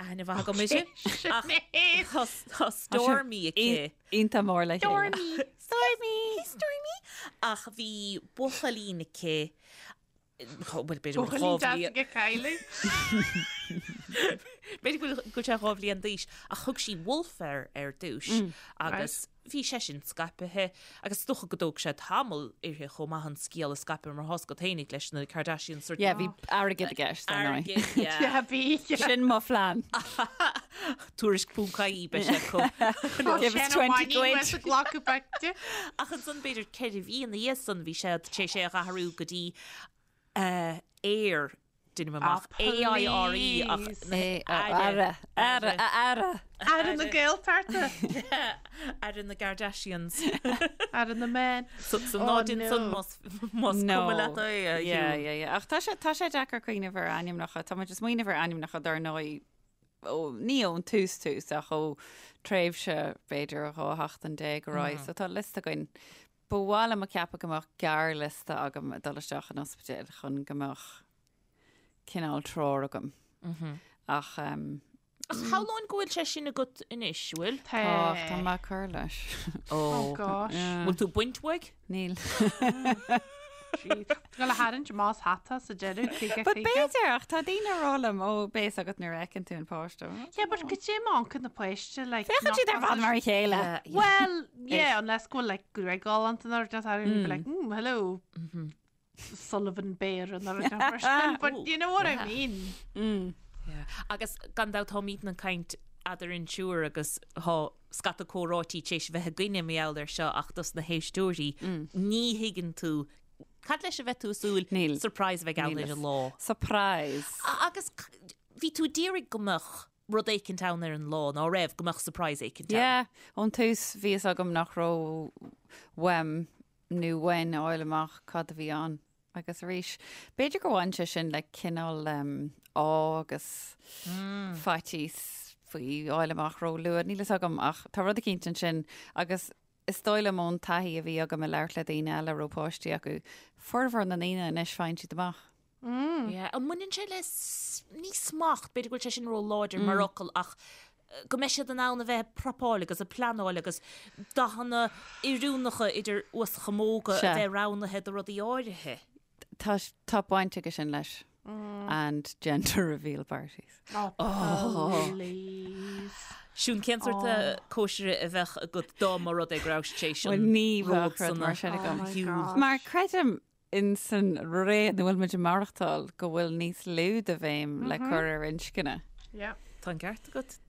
aithne mhaith agam uirthi, ach tá Stormy aici. Iontach mór le chéile. Stormy! Stormy! Stormy! Ach bhí buachaillín aici Bhuel, b'fhéidir go bhfuil Buachaillín deas aige Kylie. B'fhéidir go bhfuil sé 2 bhliain d'aois, ach thug sí Wolf air ar dtús agus bhí sé sin scaipithe agus is dócha go dtóg sé tamall uirthi chomh maith an scéal a scaipeadh mar tá's agat fhéinig leis na Kardashians sort Yeah, bhí airgead i gceist, ar ndóigh. Airgead, yeah. Yeah, bhí. Sin mo phlean. Tuairisc ponc ie beidh sé acu. Give us 20 quid. Glacadh pictiúr. Ach ansan b'fhéidir 4 mhí ina dhiaidh san bhí sé tar éis é a athrú go dtí Aire, deinim amach, A-I-R-E ach Aire, Aire, Aire. Aire na Gaeltachta. Aire na Kardashians. Aire na Men. So ná déan san más cuma leat é a Yeah, yeah, yeah. Ach tá sé tá sé deacair cuimhneamh ar ainmneacha. Tá muid ag smaoineamh ar ainmneacha dar ndóigh ó, ní ón tús tús ach ó tréimhse b'fhéidir 12 sheachtain ar aghaidh. So tá liosta againn. Ba mhaith liom a cheapadh go mbeadh gearrliosta agam ag dul isteach an ospidéil chun go mbeadh cineál treoir agam. Ach um, Ach shamhlóinn go bhfuil sé sin agat anois, bhfuil? tá, tá mé ag cur leis. Oh gosh. Bhfuil tú ag baint uaidh? Níl. Jeez. Tá tú ag tarraingt amach as hata sa deireadh, 50 But 50. b'fhéidir, ach tá daoine ag rá liom, ó, beidh a fhios agat nuair a fheiceann tú an páiste. Yeah, but goidé má amharcann na páiste, like, Féachann siad ar fad mar a chéile. Well, yeah, unless go bhfuil, like, gruaig ghalánta nó rud inteacht, you'd be like, hello, Sullivan Bear nó rud inteacht mar sin. But you know what I mean. Yeah. Agus gan dabht táimidne ag caint eadarainn triúr agus tá scata comhráití tar éis a bheith againne mar gheall air seo ach dos na héisteoirí ní thuigeann tú cad leis a bheith tú ag súil Níl. surprise a bheidh ann Níl ar an lá. Surprise. Agus bhí tú ag iarraidh go mbeadh rud éicint ann ar an lá, ná raibh, go mbeadh surprise éicint ann. Yeah, ón tús bhí fhios agam nach raibh uaim nó uainn a fháil amach cad a bhí ann. Agus arís, b'fhéidir gur bhain sé sin le cineál ádh agus faitíos faoi fháil amach ró-luath, níl fhios agam ach tá rud eicínt ansin agus is dóigh liom ón taithí a bhí agam ag labhairt le daoine eile a raibh páistí acu, formhór na ndaoine anois faigheann siad amach. Yeah, an mbaineann sé le, ní smacht, b'fhéidir go bhfuil sé sin ró-láidir mar fhocal ach go mbeidh siad in ann a bheith ag prapáil agus ag pleanáil agus dathanna oiriúnacha idir uaschamóga a bheith roghnaithe do rudaí áirithe. Tá, tá baint aige sin leis. And gender reveal parties. Oh, please. Siún, cén sórt cóisire a bheadh agat dá mba rud é go raibh sé sin Bhuel, ní bheadh rud mar sin agam. Oh Mar creidim in san ré ina bhfuil muid ag maireachtáil go bhfuil níos lú de bhéim le cur ar inscne. Yeah. Tá an ceart agat.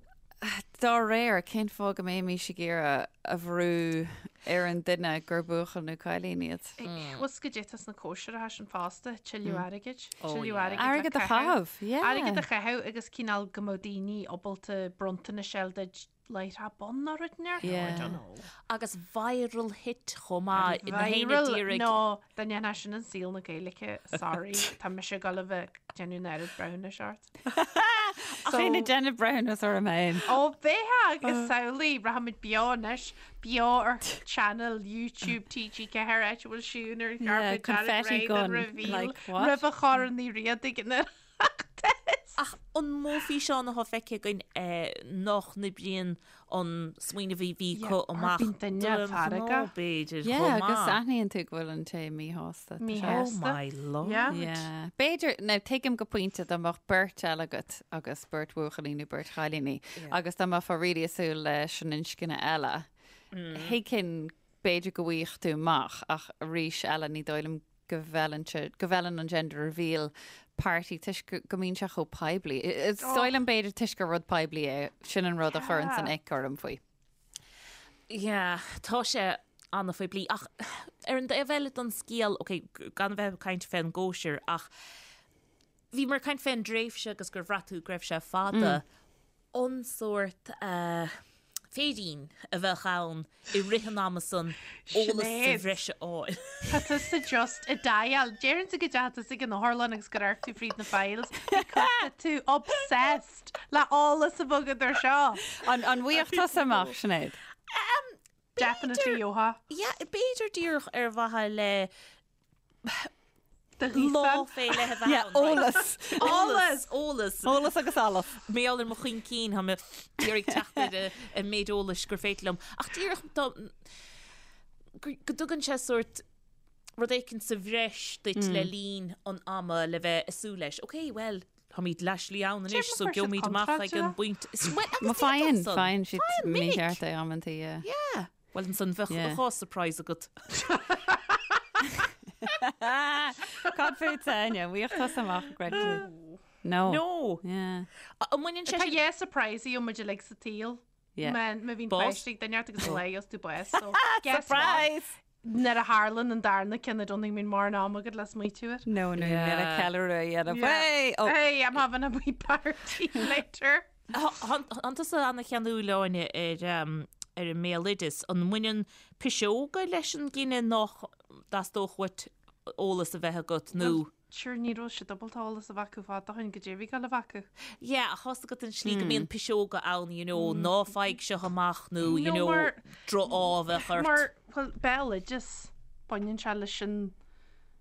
Dá réir, cén fáth go mbeimis ag iarraidh a bhrú ar an duine gur buachaill nó cailín iad. Bhfuil 's goidé atá sna cóisireacha sin fosta, tuilleadh airgid, tuilleadh airgid le Airgead a chaitheamh, yeah. Airgead a chaitheamh agus cineál go mbeadh daoine ábalta bronntanais a fháil duit láithreach bonn nó rud inteacht, I don't know. Agus viral hit chomh maith, na héinne Viral d'iarraidh. nó dá ndéanfá sin in saol na Gaeilge, sorry, tá mise ag dul a bheith ag déanamh an oiread breithiúnais ort. Ach é ag déanamh breithiúnas orm féin. Ó bheifeá agus samhlaigh, rachaimid beo anois, beo ar channel YouTube TG4 áit a bhfuil Siún ar an Yeah, carpet dearg confetti réidh don gun, reveal like, what? roimh a Chorn Uí Riada ag an Oireachtas. Ach an mó físeán atá feicthe againn nach n-oibríonn an smaoineamh a bhí acu amach Bíonn duine feargach. b'fhéidir Yeah, chomh agus maith. aithníonn tú go bhfuil an té míshásta. Tá sé- Míshásta. Oh my lord. Yeah. Yeah. B'fhéidir, now tuigim go pointe dá mbeadh beirt eile agat agus beirt bhuachaillí nó beirt chailíní agus dá mbeifeá really ag súil leis an inscne eile, thuigfinn b'fhéidir go bhfaigheadh tú amach ach arís eile ní dóigh liom go bhfeileann sé, go bhfeileann an gender reveal party toisc go, go mbíonn sé chomh poiblí. Is dóigh liom b'fhéidir toisc gur rud poiblí é, sin an rud a chuireann an ick orm faoi. Yeah, tá sé an-phoiblí ach ar an dtaobh eile den scéal, ok, gan a bheith ag caint fén gcóisir ach bhíomar ag caint fén dtréimhse agus gur bhraith tú go raibh sé fada. An sórt féirín a bheadh ann i rith an ama san eolas sa bhreis a fháil. Tá tusa just ag dial. Deireann tú go dteachaigh tusa ag an otharlann agus gur amharc tú fríd na files because tá tú obsessed le eolas a bheith agat ar seo. An an bhfaigheadh tusa amach, Sinéad? Definitely gheofá. Yeah, b'fhéidir díreach ar mhaithe le Do ghíosán. Lá fé leith a bheith Yeah, ann, right. eolas. Eolas, eolas. Eolas agus allas. Mar gheall ar mo chuincín, tá mé ag iarraidh teacht ar an méid eolais gur féidir liom. Ach díreach dá, go go dtugann sé sórt rud éicint sa bhreis duit le linn an ama le bheith ag súil leis. Ok, well, táimid leath-slí ann anois, Déarfainn so fuair siad gheobhaimid amach ag an contráilte. bpointe. Is- Well, agus Má faigheann, d'fhéadfadh san. faigheann siad Faigheann minic. mícheart é amantaí, yeah. Yeah. Well, ansan bheadh Yeah. dhá surprise agat. Cad fútsa, Áine? Bhfaigheadh tusa amach an gcreideann tú? No. No. Yeah. An mbaineann sé Tá sin... dhá surprise a gheobhaidh muid uilig sa tsaol. Yeah. Má má bhíonn Bás. páiste ag duine ort agus an lá a gheobhas tú bás. So, guess what? Surprise! Nuair a tharlann an darna ceann I don't think go mbíonn mórán ama agat le smaoitiú air. No, no, Yeah. yeah. ceiliúradh a dhéanamh. Yeah. Hey! Oh, Hey, I'm having a wee party later. Tánn tusa ana-cheanúil, Áine, ar an mbéaloideas. An mbaineann piseoga leis an gcinneadh nach dteastódh uait eolas a bheith agat nó? Sure, ní raibh siad ábalta eolas a bheith acu fad ó shin goidé a bhí ag dul a bheith acu. Yeah, ach tá's agat an slí go mbíonn piseoga ann, you know, ná faigh seo amach nó, you No, know, mar- droch-ádh a bheadh ort. Mar, bhuel, béaloideas, baineann sé leis an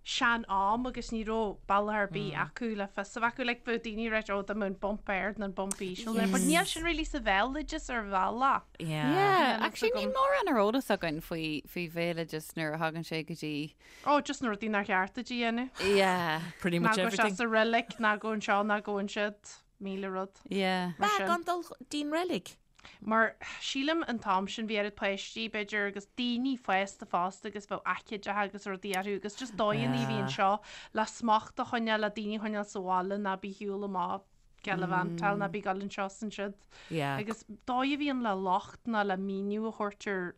sean-am agus ní raibh bealach ar bith acu le fios a bheith acu. Like, bheadh daoine ag ráit, oh, dá mbeadh an bump ard nó an bump íseal there. But níl sin really sa bhéaloideas ar bhealach. Yeah. Yeah, Níl actually fhios níl agam. mórán ar eolas againn faoi faoi bhéaloideas nuair a thagann sé go dtí Oh, just na rudaí nár cheart duit a dhéanamh. Yeah, Pretty Ná much go everything. isteach sa reilig, ná go anseo, ná go ansiúd, 1000 rud. yeah. Mar Bea, sin. gan dul dtí'n reilig. Mar sílim an t-am sin bhí oiread páistí, b'fhéidir, agus daoine fásta fosta agus bheadh aicídeacha agus rudaí orthu agus just dóigheanna a bhí anseo le smacht a choinneáil, le daoine a choinneáil sa bhaile ná bí shiúl amach gallivantáil ná bí ag dul anseo is ansiúd. Yeah. Agus dóigh a bhí ann le locht ná le míniú a thabhairt ar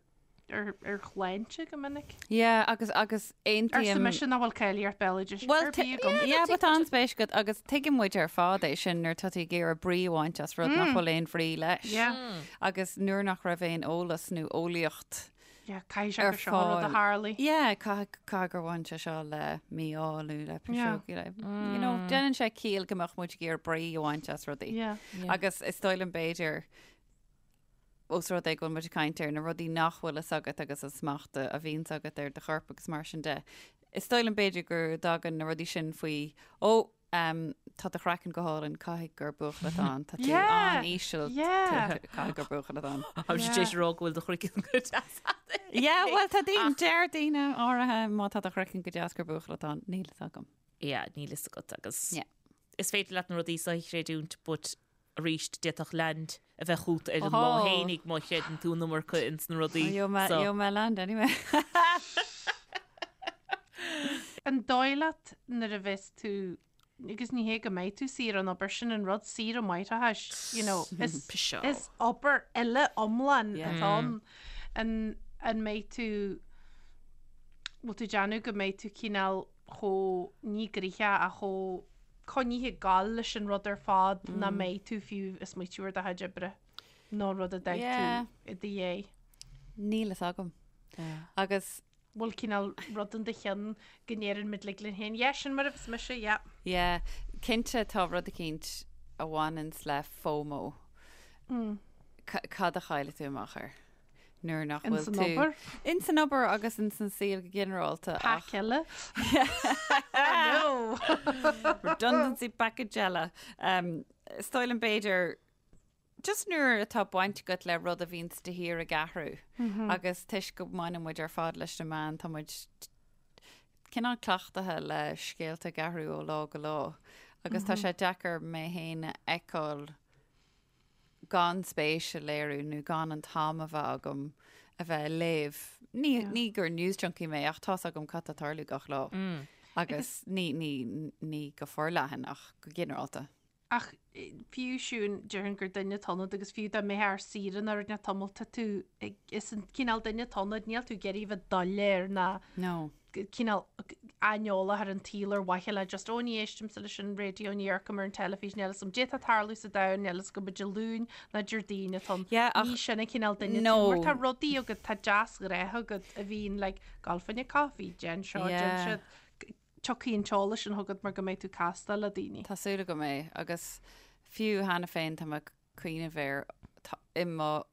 ar ar shláinte go minic. Yeah, agus agus Arsa aontaím. mise nach bhfuil cáilíocht béaloidis Well, ar bith agam. yeah, but tá an-spéis agat agus tuigeann muid ar fad é sin nuair atá tú ag iarraidh brí a bhaint as rud nach bhfuil aon bhrí leis. Yeah. Agus nuair nach raibh aon eolas nó eolaíocht Yeah, caithfidh sé ar gur seo an rud a fáil. tharlaigh. Yeah, caithfidh caithfidh gur bhain sé seo le mí-ádh nó le Yeah. piseog, you know, déanann sé ciall go mbeadh muid ag iarraidh brí a bhaint as rudaí. Yeah. Agus is dóigh liom b'fhéidir Ós rud é go bhfuil muid ag caint ar na rudaí nach bhfuil fhios agat agus an smacht a bhíonns agat ar do chorp agus mar sin de, is dóigh liom b'fhéidir go dtagann na rudaí sin faoi, ó, tá do chraiceann go hálainn, caithfidh gur buachaill atá ann, tá tú an-íseal, caithfidh gur buachaill atá ann. Tá sé tar éis a rá go bhfuil do chraiceann go deas agat. Yeah, bhuel tá daoine, deir daoine áirithe má tá do chraiceann go deas gur buachaill atá ann, níl fhios agam. Yeah, níl fhios agat agus is féidir leat na rudaí seo a chreidiúint but arís d'fhéadfadh land a bheith chugat ar an lá fhéinig má chreideann tú an iomarca ins na rudaí so. Gheobhaidh mé land anyway. An dóigh leat nuair a bheas tú, agus ní hé go mbeidh tú saor ón obair, sin an rud, saoire máithreachais, you know, is, is obair eile iomlán atá ann. An. An mbeidh tú, bhfuil tú ag déanamh go mbeidh tú cineál chomh, ní gnoitheach ach chomh coinnithe ag gabháil leis an rud ar fad nach mbeidh tú fiú ag smaoitiú ar do chuid oibre nó rud a d'fhág tú i do dhiaidh. Níl fhios agam. Agus. bhfuil cineál rud in do cheann go ndeireann muid like linn féin, yeah, sin mar a bheas mise, yeah. Yeah, cinnte tá rud eicínt a bhaineanns le FOMO. Cad a chaillfidh tú amach air? Nuair nach bhfuil Ins an tú. obair? Ins an obair agus ins an saol go ginearálta ach. Pack eile? Oh no! Redundancy package eile. Is dóigh liom b'fhéidir just nuair atá baint agat le rud a bhíonns de shíor ag athrú agus toisc go mbaineann muid ar fad leis na meáin, tá muid cineál cleachtaithe le scéalta ag athrú ó lá go lá agus tá sé deacair mé féin a fheiceáil gan spéis a léiriú nó gan an t-am a bheith agam a bheith ag léamh. Ní, ní gur news junkie mé ach tá's agam cad tá ag tarlú gach lá. Agus ní, ní, ní go forleathan ach go ginearálta. Ach fiú Siún, déarfainn gur duine atá ionat agus fiú dá mbeifeá ar saoire nó rud inteacht tamall, tá tú ag, is an cineál duine atá ionat, níl tú ag iarraidh bheith doiléir ná No. cineál aineolach ar an tsaol ar mhaithe le just, ó ní éistimse leis an raidió, ní amharcaim ar an teilifís, níl fhios agam caidé atá ag tarlú sa domhan, níl fhios agam Dé Luain ná Déardaoin atá ann. Yeah, ach Ní sin an cineál duine tú, No. mar tá rudaí agat, tá deasghnátha agat a bhíonn like, gabh fá choinne caife, déan seo, déan Yeah. siúd. Tiocfaidh an t-eolas sin chugat mar go mbeidh tú ag castáil le daoine. Tá súil agam é, agus fiú cheana féin tá mé ag cuimhneamh air, i mo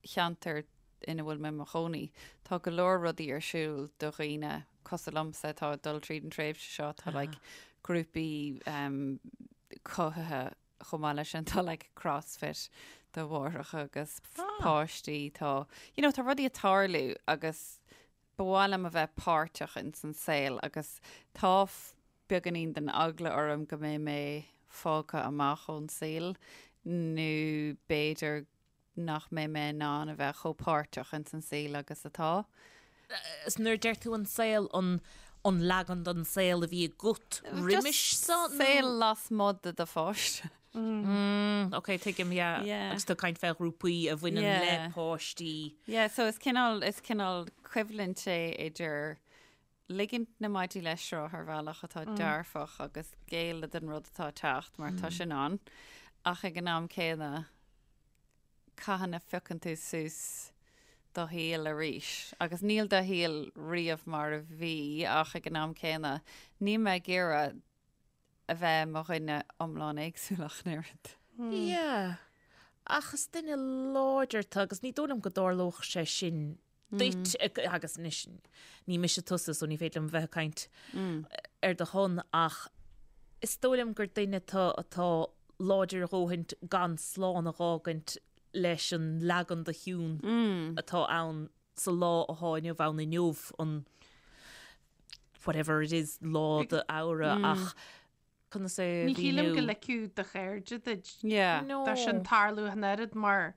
cheantar ina bhfuil mé i mo chónaí, tá go leor rudaí ar siúl do dhaoine cosúil liomsa atá ag dul tríd an tréimhse seo, tá like grúpaí cothaithe chomh maith leis sin, tá like crossfit do mháithreacha agus páistí, tá, you know, tá rudaí ag tarlú agus Ba mhaith liom a bheith páirteach ins an saol agus tá beagáinín den eagla orm go mbeidh mé fágtha amach ón saol nó b'fhéidir nach mbeidh mé in ann a bheith chomh páirteach ins an saol agus atá. Is nuair a deir tú an saol, an an leagan den saol a bhí agat roimis seo nó? Saol lasmuigh de do pháiste. Mm, ok, tuigim, yeah. Yeah. Agus tú ag caint fé ghrúpaí a bhaineann Yeah. le páistí. Yeah, so is cineál, is cineál coimhlint é idir ligint na maidí le sruth ar bhealach atá dearfach agus géilleadh don rud atá ag teacht mar tá sin ann, ach ag an am céanna cathain a phiocann tú suas do shaol arís agus níl do shaol riamh mar a bhí ach ag an am céanna níl mé ag iarraidh a bheith i mo dhuine iomlán éagsúil ach an oiread. Yeah. Ach is duine láidir tú agus ní dóigh liom go dtarlódh sé sin duit agus anois ní mise tusa so ní féidir liom bheith ag caint ar do shon ach is dóigh liom gur duine tú atá láidir a dhóthaint gan slán a dh'fhágaint leis an leagan de Shiún atá ann sa lá atá inniu ann inniu an whatever it is lá d'Fheabhra ach conas é a Ní shílim go mhíniú? ligfeadh do chairde duit Yeah. No. dó sin tarlú ach an oiread mar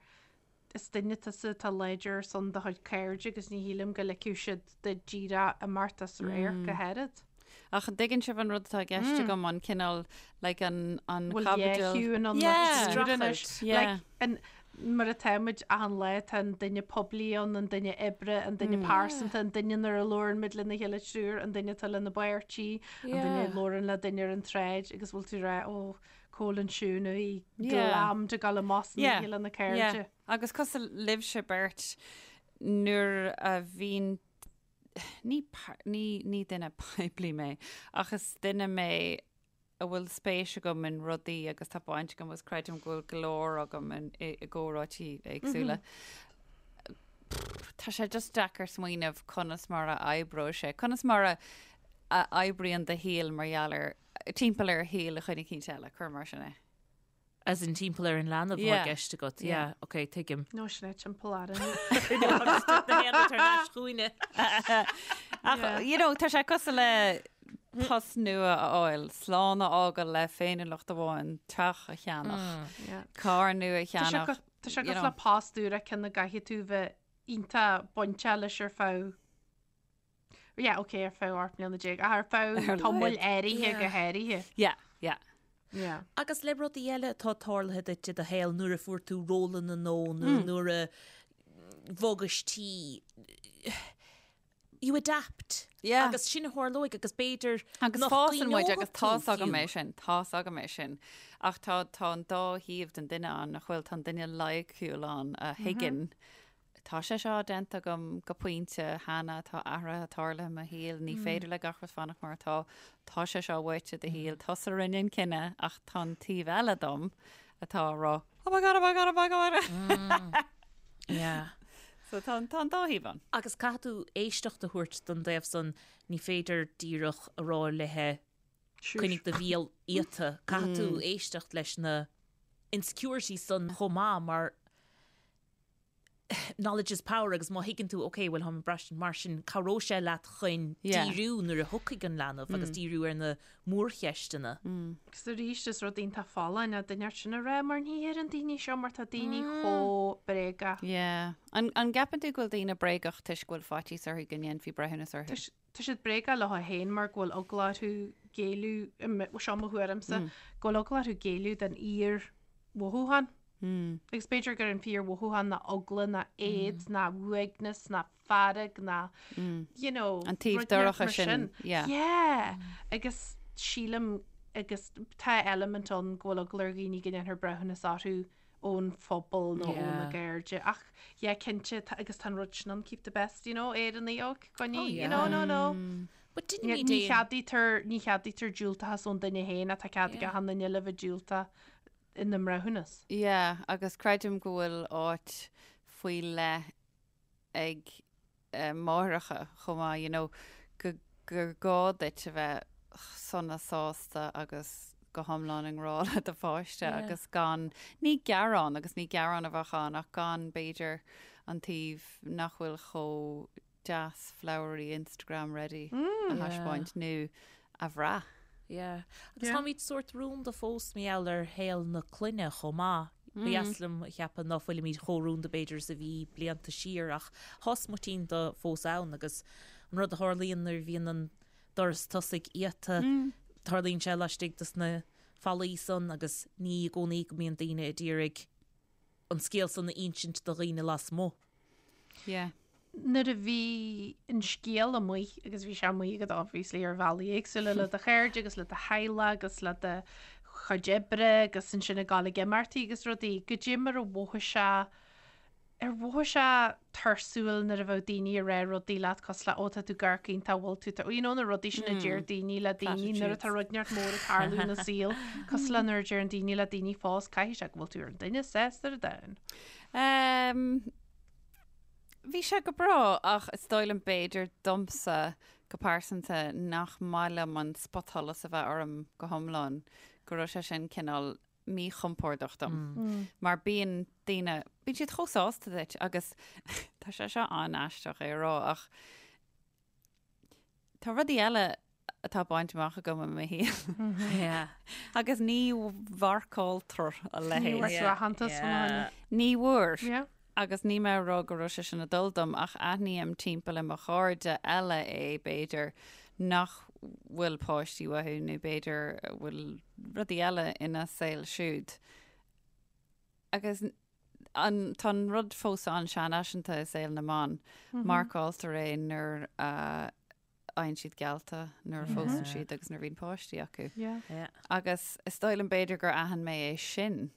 is duine tusa atá láidir ar son do chuid cairde agus ní shílim go ligfeadh siad duit díreach imeacht as radharc ach oiread. Ach an dtuigeann sibh an rud atá i gceist agam, an cineál, like, an, an Bhfuil chaibidil. Shiún ann Yeah. anois. Yeah. Like, an, mar atá muid achan lá, tá an duine poiblí ann, an duine oibre, an duine pearsanta, an duine nuair a labhrann muid lena chéile triúr, an duine atá lena bpáirtí, an duine a labhrann le duine ar an tsráid agus bhfuil tú ag rá, ó, cá bhfuil an Siún a bhí glammed ag dul amach san oíche lena cairde. Agus cosúil libhse beirt, nuair a bhíonn ní, ní, ní duine poiblí mé, ach is duine mé a bhfuil spéis agam in rudaí agus tá baint agam agus creidim go bhfuil glór agam in, i, i gcomhráití éagsúla. Tá sé just deacair smaoineamh conas mar a oibreoidh sé, conas mar a, a oibríonn do shaol mar gheall ar, timpeall ar shaol dhuine eicínt eile, cuir mar sin é. As in timpeall ar an leanbh atá i gceist agat. Yeah, ok, tuigim. No, sin é timpeall orainn. Agus na haon tar n-ais chugainne. Ach, you know, tá sé cosúil le post nua a fháil, slán a fhágáil le féiniúlacht amháin, teach a cheannach, carr nua a cheannach. Tá sé cosúil le post úr a ceann a gcaithfidh tú bheith iontach bainteach leis ar feadh Yeah, ok, ar feadh 18 mbliana, ach ar feadh tamaill áirithe go háirithe. Yeah, yeah. Yeah. Agus le rudaí eile atá tarlaithe duit i do shaol nuair a fuair tú rólanna nó nó nuair a. bhogais tí, you adapt. Yeah. Agus sin a tharlóidh agus b'fhéidir Agus nach fásann muid gcuimhneoidh agus tú tá's agam fiú. é sin, tá's agam é sin. Ach tá, tá an dá thaobh den duine ann, nach bhfuil, tá an duine loighciúil ann a thuigeann, tá sé seo déanta agam go pointe cheana, tá athruithe tarlaithe i mo shaol, ní féidir le gach rud fanacht mar atá, tá sé seo uait i do shaol, tusa a rinne an cinneadh ach tá an taobh eile dom atá ag rá, oh my god, oh my god, oh my god. Yeah. So tá an, tá an dá thaobh ann. Agus caithfidh tú éisteacht a thabhairt don dtaobh san, ní féidir díreach a rá léithe coinnigh do bhéal iata, caithfidh tú éisteacht leis na insecurities san chomh maith mar knowledge is power agus má thuigeann tú ok bhuel táim ag braistint mar sin cabhróidh sé leat chun díriú nuair a thiocfaidh an leanbh agus díriú ar na mórcheisteanna. Agus arís is rud iontach folláin é duine sin a rá mar ní deireann daoine seo mar tá daoine chomh bréagach. Yeah. An, an gceapann tú go bhfuil daoine bréagach toisc go bhfuil faitíos orthu go ndéanfaí breithiúnas orthu? Tá siad bréagach leo féin mar go bhfuil eagla orthu géilleadh, seo mo thuairimse, go bhfuil eagla orthu géilleadh don fhíor-mhothúchán. Agus b'fhéidir gur an fíor-mhothúchán ná eagla ná éad ná uaigneas ná fearg ná, you know, An taobh rud inteacht dorcha mar sin, sin. yeah. Yeah. Agus sílim, agus tá eilimint ann go bhfuil eagla ar dhaoine go ndéanfar breithiúnas orthu ón phobal nó ó na Yeah. cairde. Ach, yeah, cinnte, tá, agus tá an rud sin ann, keep the best, you know, Éireannaigh, ó, coinnigh, Oh, you know, no, no. But Ní deinimid ní aon- cheadaítear, ní cheadaítear diúltachas ón duine féin ach tá cead ag Yeah. achan duine eile bheith diúltach ina mbreithiúnas. Yeah, agus creidim go bhfuil áit faoi leith ag máithreacha chomh maith, you know, go, gur gá duit a bheith sona sásta agus go hiomlán i ngrá le do pháiste Yeah. agus gan, ní gearán agus ní gearán a bheadh ann ach gan b'fhéidir an taobh nach bhfuil chomh deas flowery Instagram ready a thaispeáint nó a bhrath. Yeah. Agus táimid sórt rúnda fós mar gheall ar shaol na clainne chomh maith. Ba dheas liom a cheapadh ná fuilimid chomh rúnda b'fhéidir is a bhí blianta siar ach tá smuitín de fós ann agus an rud a tharlaíonn nuair a bhíonn an doras tosaigh iata, tarlaíonn sé laistigh dos na fallaí san agus ní i gcónaí go mbíonn daoine a d'iarraidh an scéal san a insint do dhaoine lasmuigh. Yeah. Nuair a bhí an scéal amuigh, agus bhí sé amuigh agat obviously ar bhealaí éagsúla le do chairde agus le do theaghlach agus le do chuid oibre agus ansin ag dul ag imeachtaí agus rudaí, goidé mar a mhothaigh sé, ar mhothaigh sé tuirsiúil nuair a bheadh daoine ag rá rudaí leat cosúil le 'Ó tá tú ag amharc iontach, bhfuil tú, tá-, you know na rudaí sin a deir daoine le daoine nuair atá rud inteacht mór ag tarlú ina saol, cosúil le nuair a deireann daoine le daoine fós caithfidh sé go bhfuil tú ar an duine is sásta ar an domhan. Um, bhí sé go breá ach is dóigh liom b'fhéidir domsa go pearsanta nach maith liom an spotsholas a bheith orm go hiomlán, go raibh sé sin cineál míchompordach dom. Mm. Mar bíonn daoine, bíonn siad chomh sásta duit agus tá sé seo an-aisteach é a rá ach tá rudaí eile atá bainte amach agam i mo shaol. Agus ní mharcáiltear a leithéid. Ní bhfuair tú aitheantas fá choinne. Ní bhfuair. Agus níl mé ag rá go raibh sé sin ag dul dom ach aithním timpeall i mo chairde eile é b'fhéidir nach bhfuil páistí uathu nó b'fhéidir bhfuil rudaí eile ina saol siúd. Agus an, tá an rud fós an-seanfhaiseanta i saol na mban. Marcáiltear é nuair a fhaigheann siad geallta nuair a phósann siad agus nuair a bhíonn páistí acu. Agus is dóigh liom b'fhéidir gur aithin mé é sin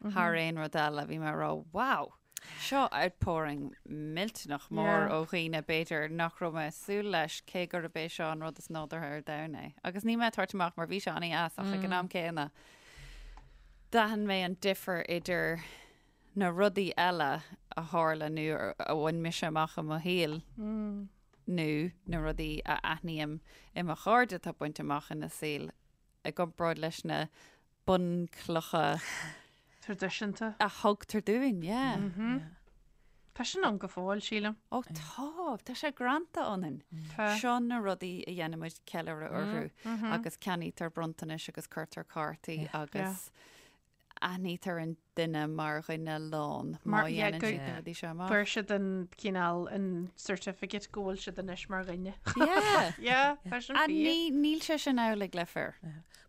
thar aon rud eile. Bhí mé ag rá, wow, seo outpouring millteanach mór ó dhaoine b'fhéidir nach raibh mé ag súil leis cé gurb é seo an rud is nádúrtha ar domhan é. Agus níl mé ag tabhairt amach mar bhí sé an-deas ach ag an am céanna d'aithin mé an difear idir na rudaí eile a tharla nó a bhain mise amach i mo shaol. nó na rudaí a aithním i mo chairde atá bainte amach ina saol i gcomparáid leis na bunchlocha Traidisiúnta. a thugtar dúinn, yeah. Tá sin ann go fóill, sílim. Ó tá, tá sé greanta ionainn. Tá. Seo na rudaí a dhéanaimid ceiliúradh orthu agus ceannaítear bronntanais agus cuirtear cártaí agus aithnítear an duine mar dhuine lán má dhéanann siad na rudaí seo amach. Fuair siad an cineál an certificate go bhfuil siad anois mar dhuine. Yeah. Yeah, tá sin And fíor. ní, níl sé sin amhlaidh le fir.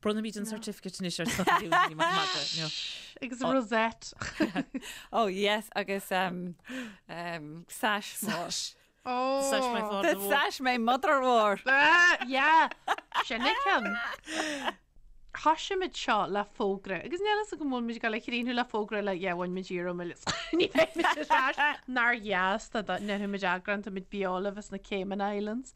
Bronnfaimid an certificate anois ar son ní maith madra. No. Agus rosette. Oh yes, agus um, um, sash mór. Sash. Oh. Sash my father The wore. sash my mother wore. Ah, yeah. Sin é ceann. Thosaigh muid seo le fógra, agus níl fhios agam an bhfuil muid ag dul a chríochnú le fógra le yeah, bhain muid iarraidh ní bheidh muid ar ais nár dheas dá ndéanfadh muid eagrán, tá muid beo libh as na Cayman Islands.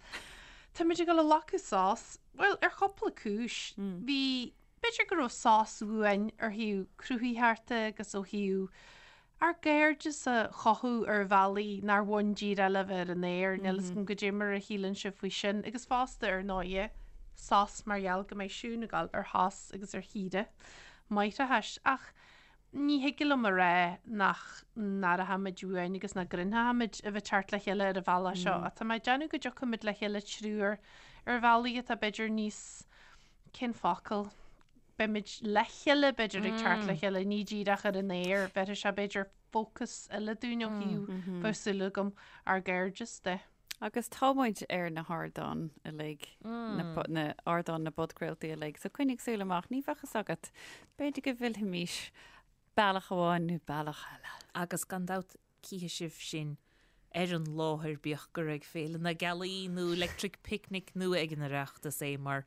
Tá muid ag dul a ghlacadh sos, bhuel, ar chúpla cúis. Bhí, b'fhéidir go raibh sos uainn ar thaobh cruthaitheachta agus ó thaobh ár gcairdeas a chothú ar bhealaí nár bhain díreach le bheith ar an aer, níl fhios agam goidé mar a shíleann sibh faoi sin, agus fosta, ar ndóighe, sos mar gheall go mbeidh Siún ag dul ar shos agus ar shaoire máithreachais. Ach ní thig liom a rá nach n-aireochaimid uainn agus nach gcruinneochaimid a bheith ag teacht le chéile ar an bhealach seo, ach tá mé ag déanamh go dtiocfaimid le chéile triúr ar bhealaí atá b'fhéidir níos, cén focal? beimid le chéile, b'fhéidir, ag teacht le chéile, ní díreach ar an aer, bhéarfaidh sé, b'fhéidir, fócas eile dúinn ó thaobh, bheadh súil agam, ár gcairdeas de. Agus tá muid ar na hardáin uilig, na ardáin na bpodchraoltaí uilig, so coinnigh súil amach, ní bheadh fhios agat, b'fhéidir go bhfillfimis bealach amháin nó bealach eile. Agus gan dabht Cífidh sibh sinn ar an láthair, bíodh gur ag Féile na Gealaí nó Electric Picnic nó ag an Oireachtas é, mar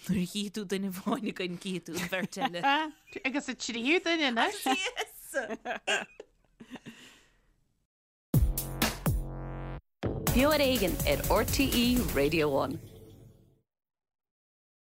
nuair a chífidh tú duine amháin againn, cífidh tú an bheirt eile. Agus an tríú duine anois. Yes! Beo ar Éigean ar RTÉ Radio One.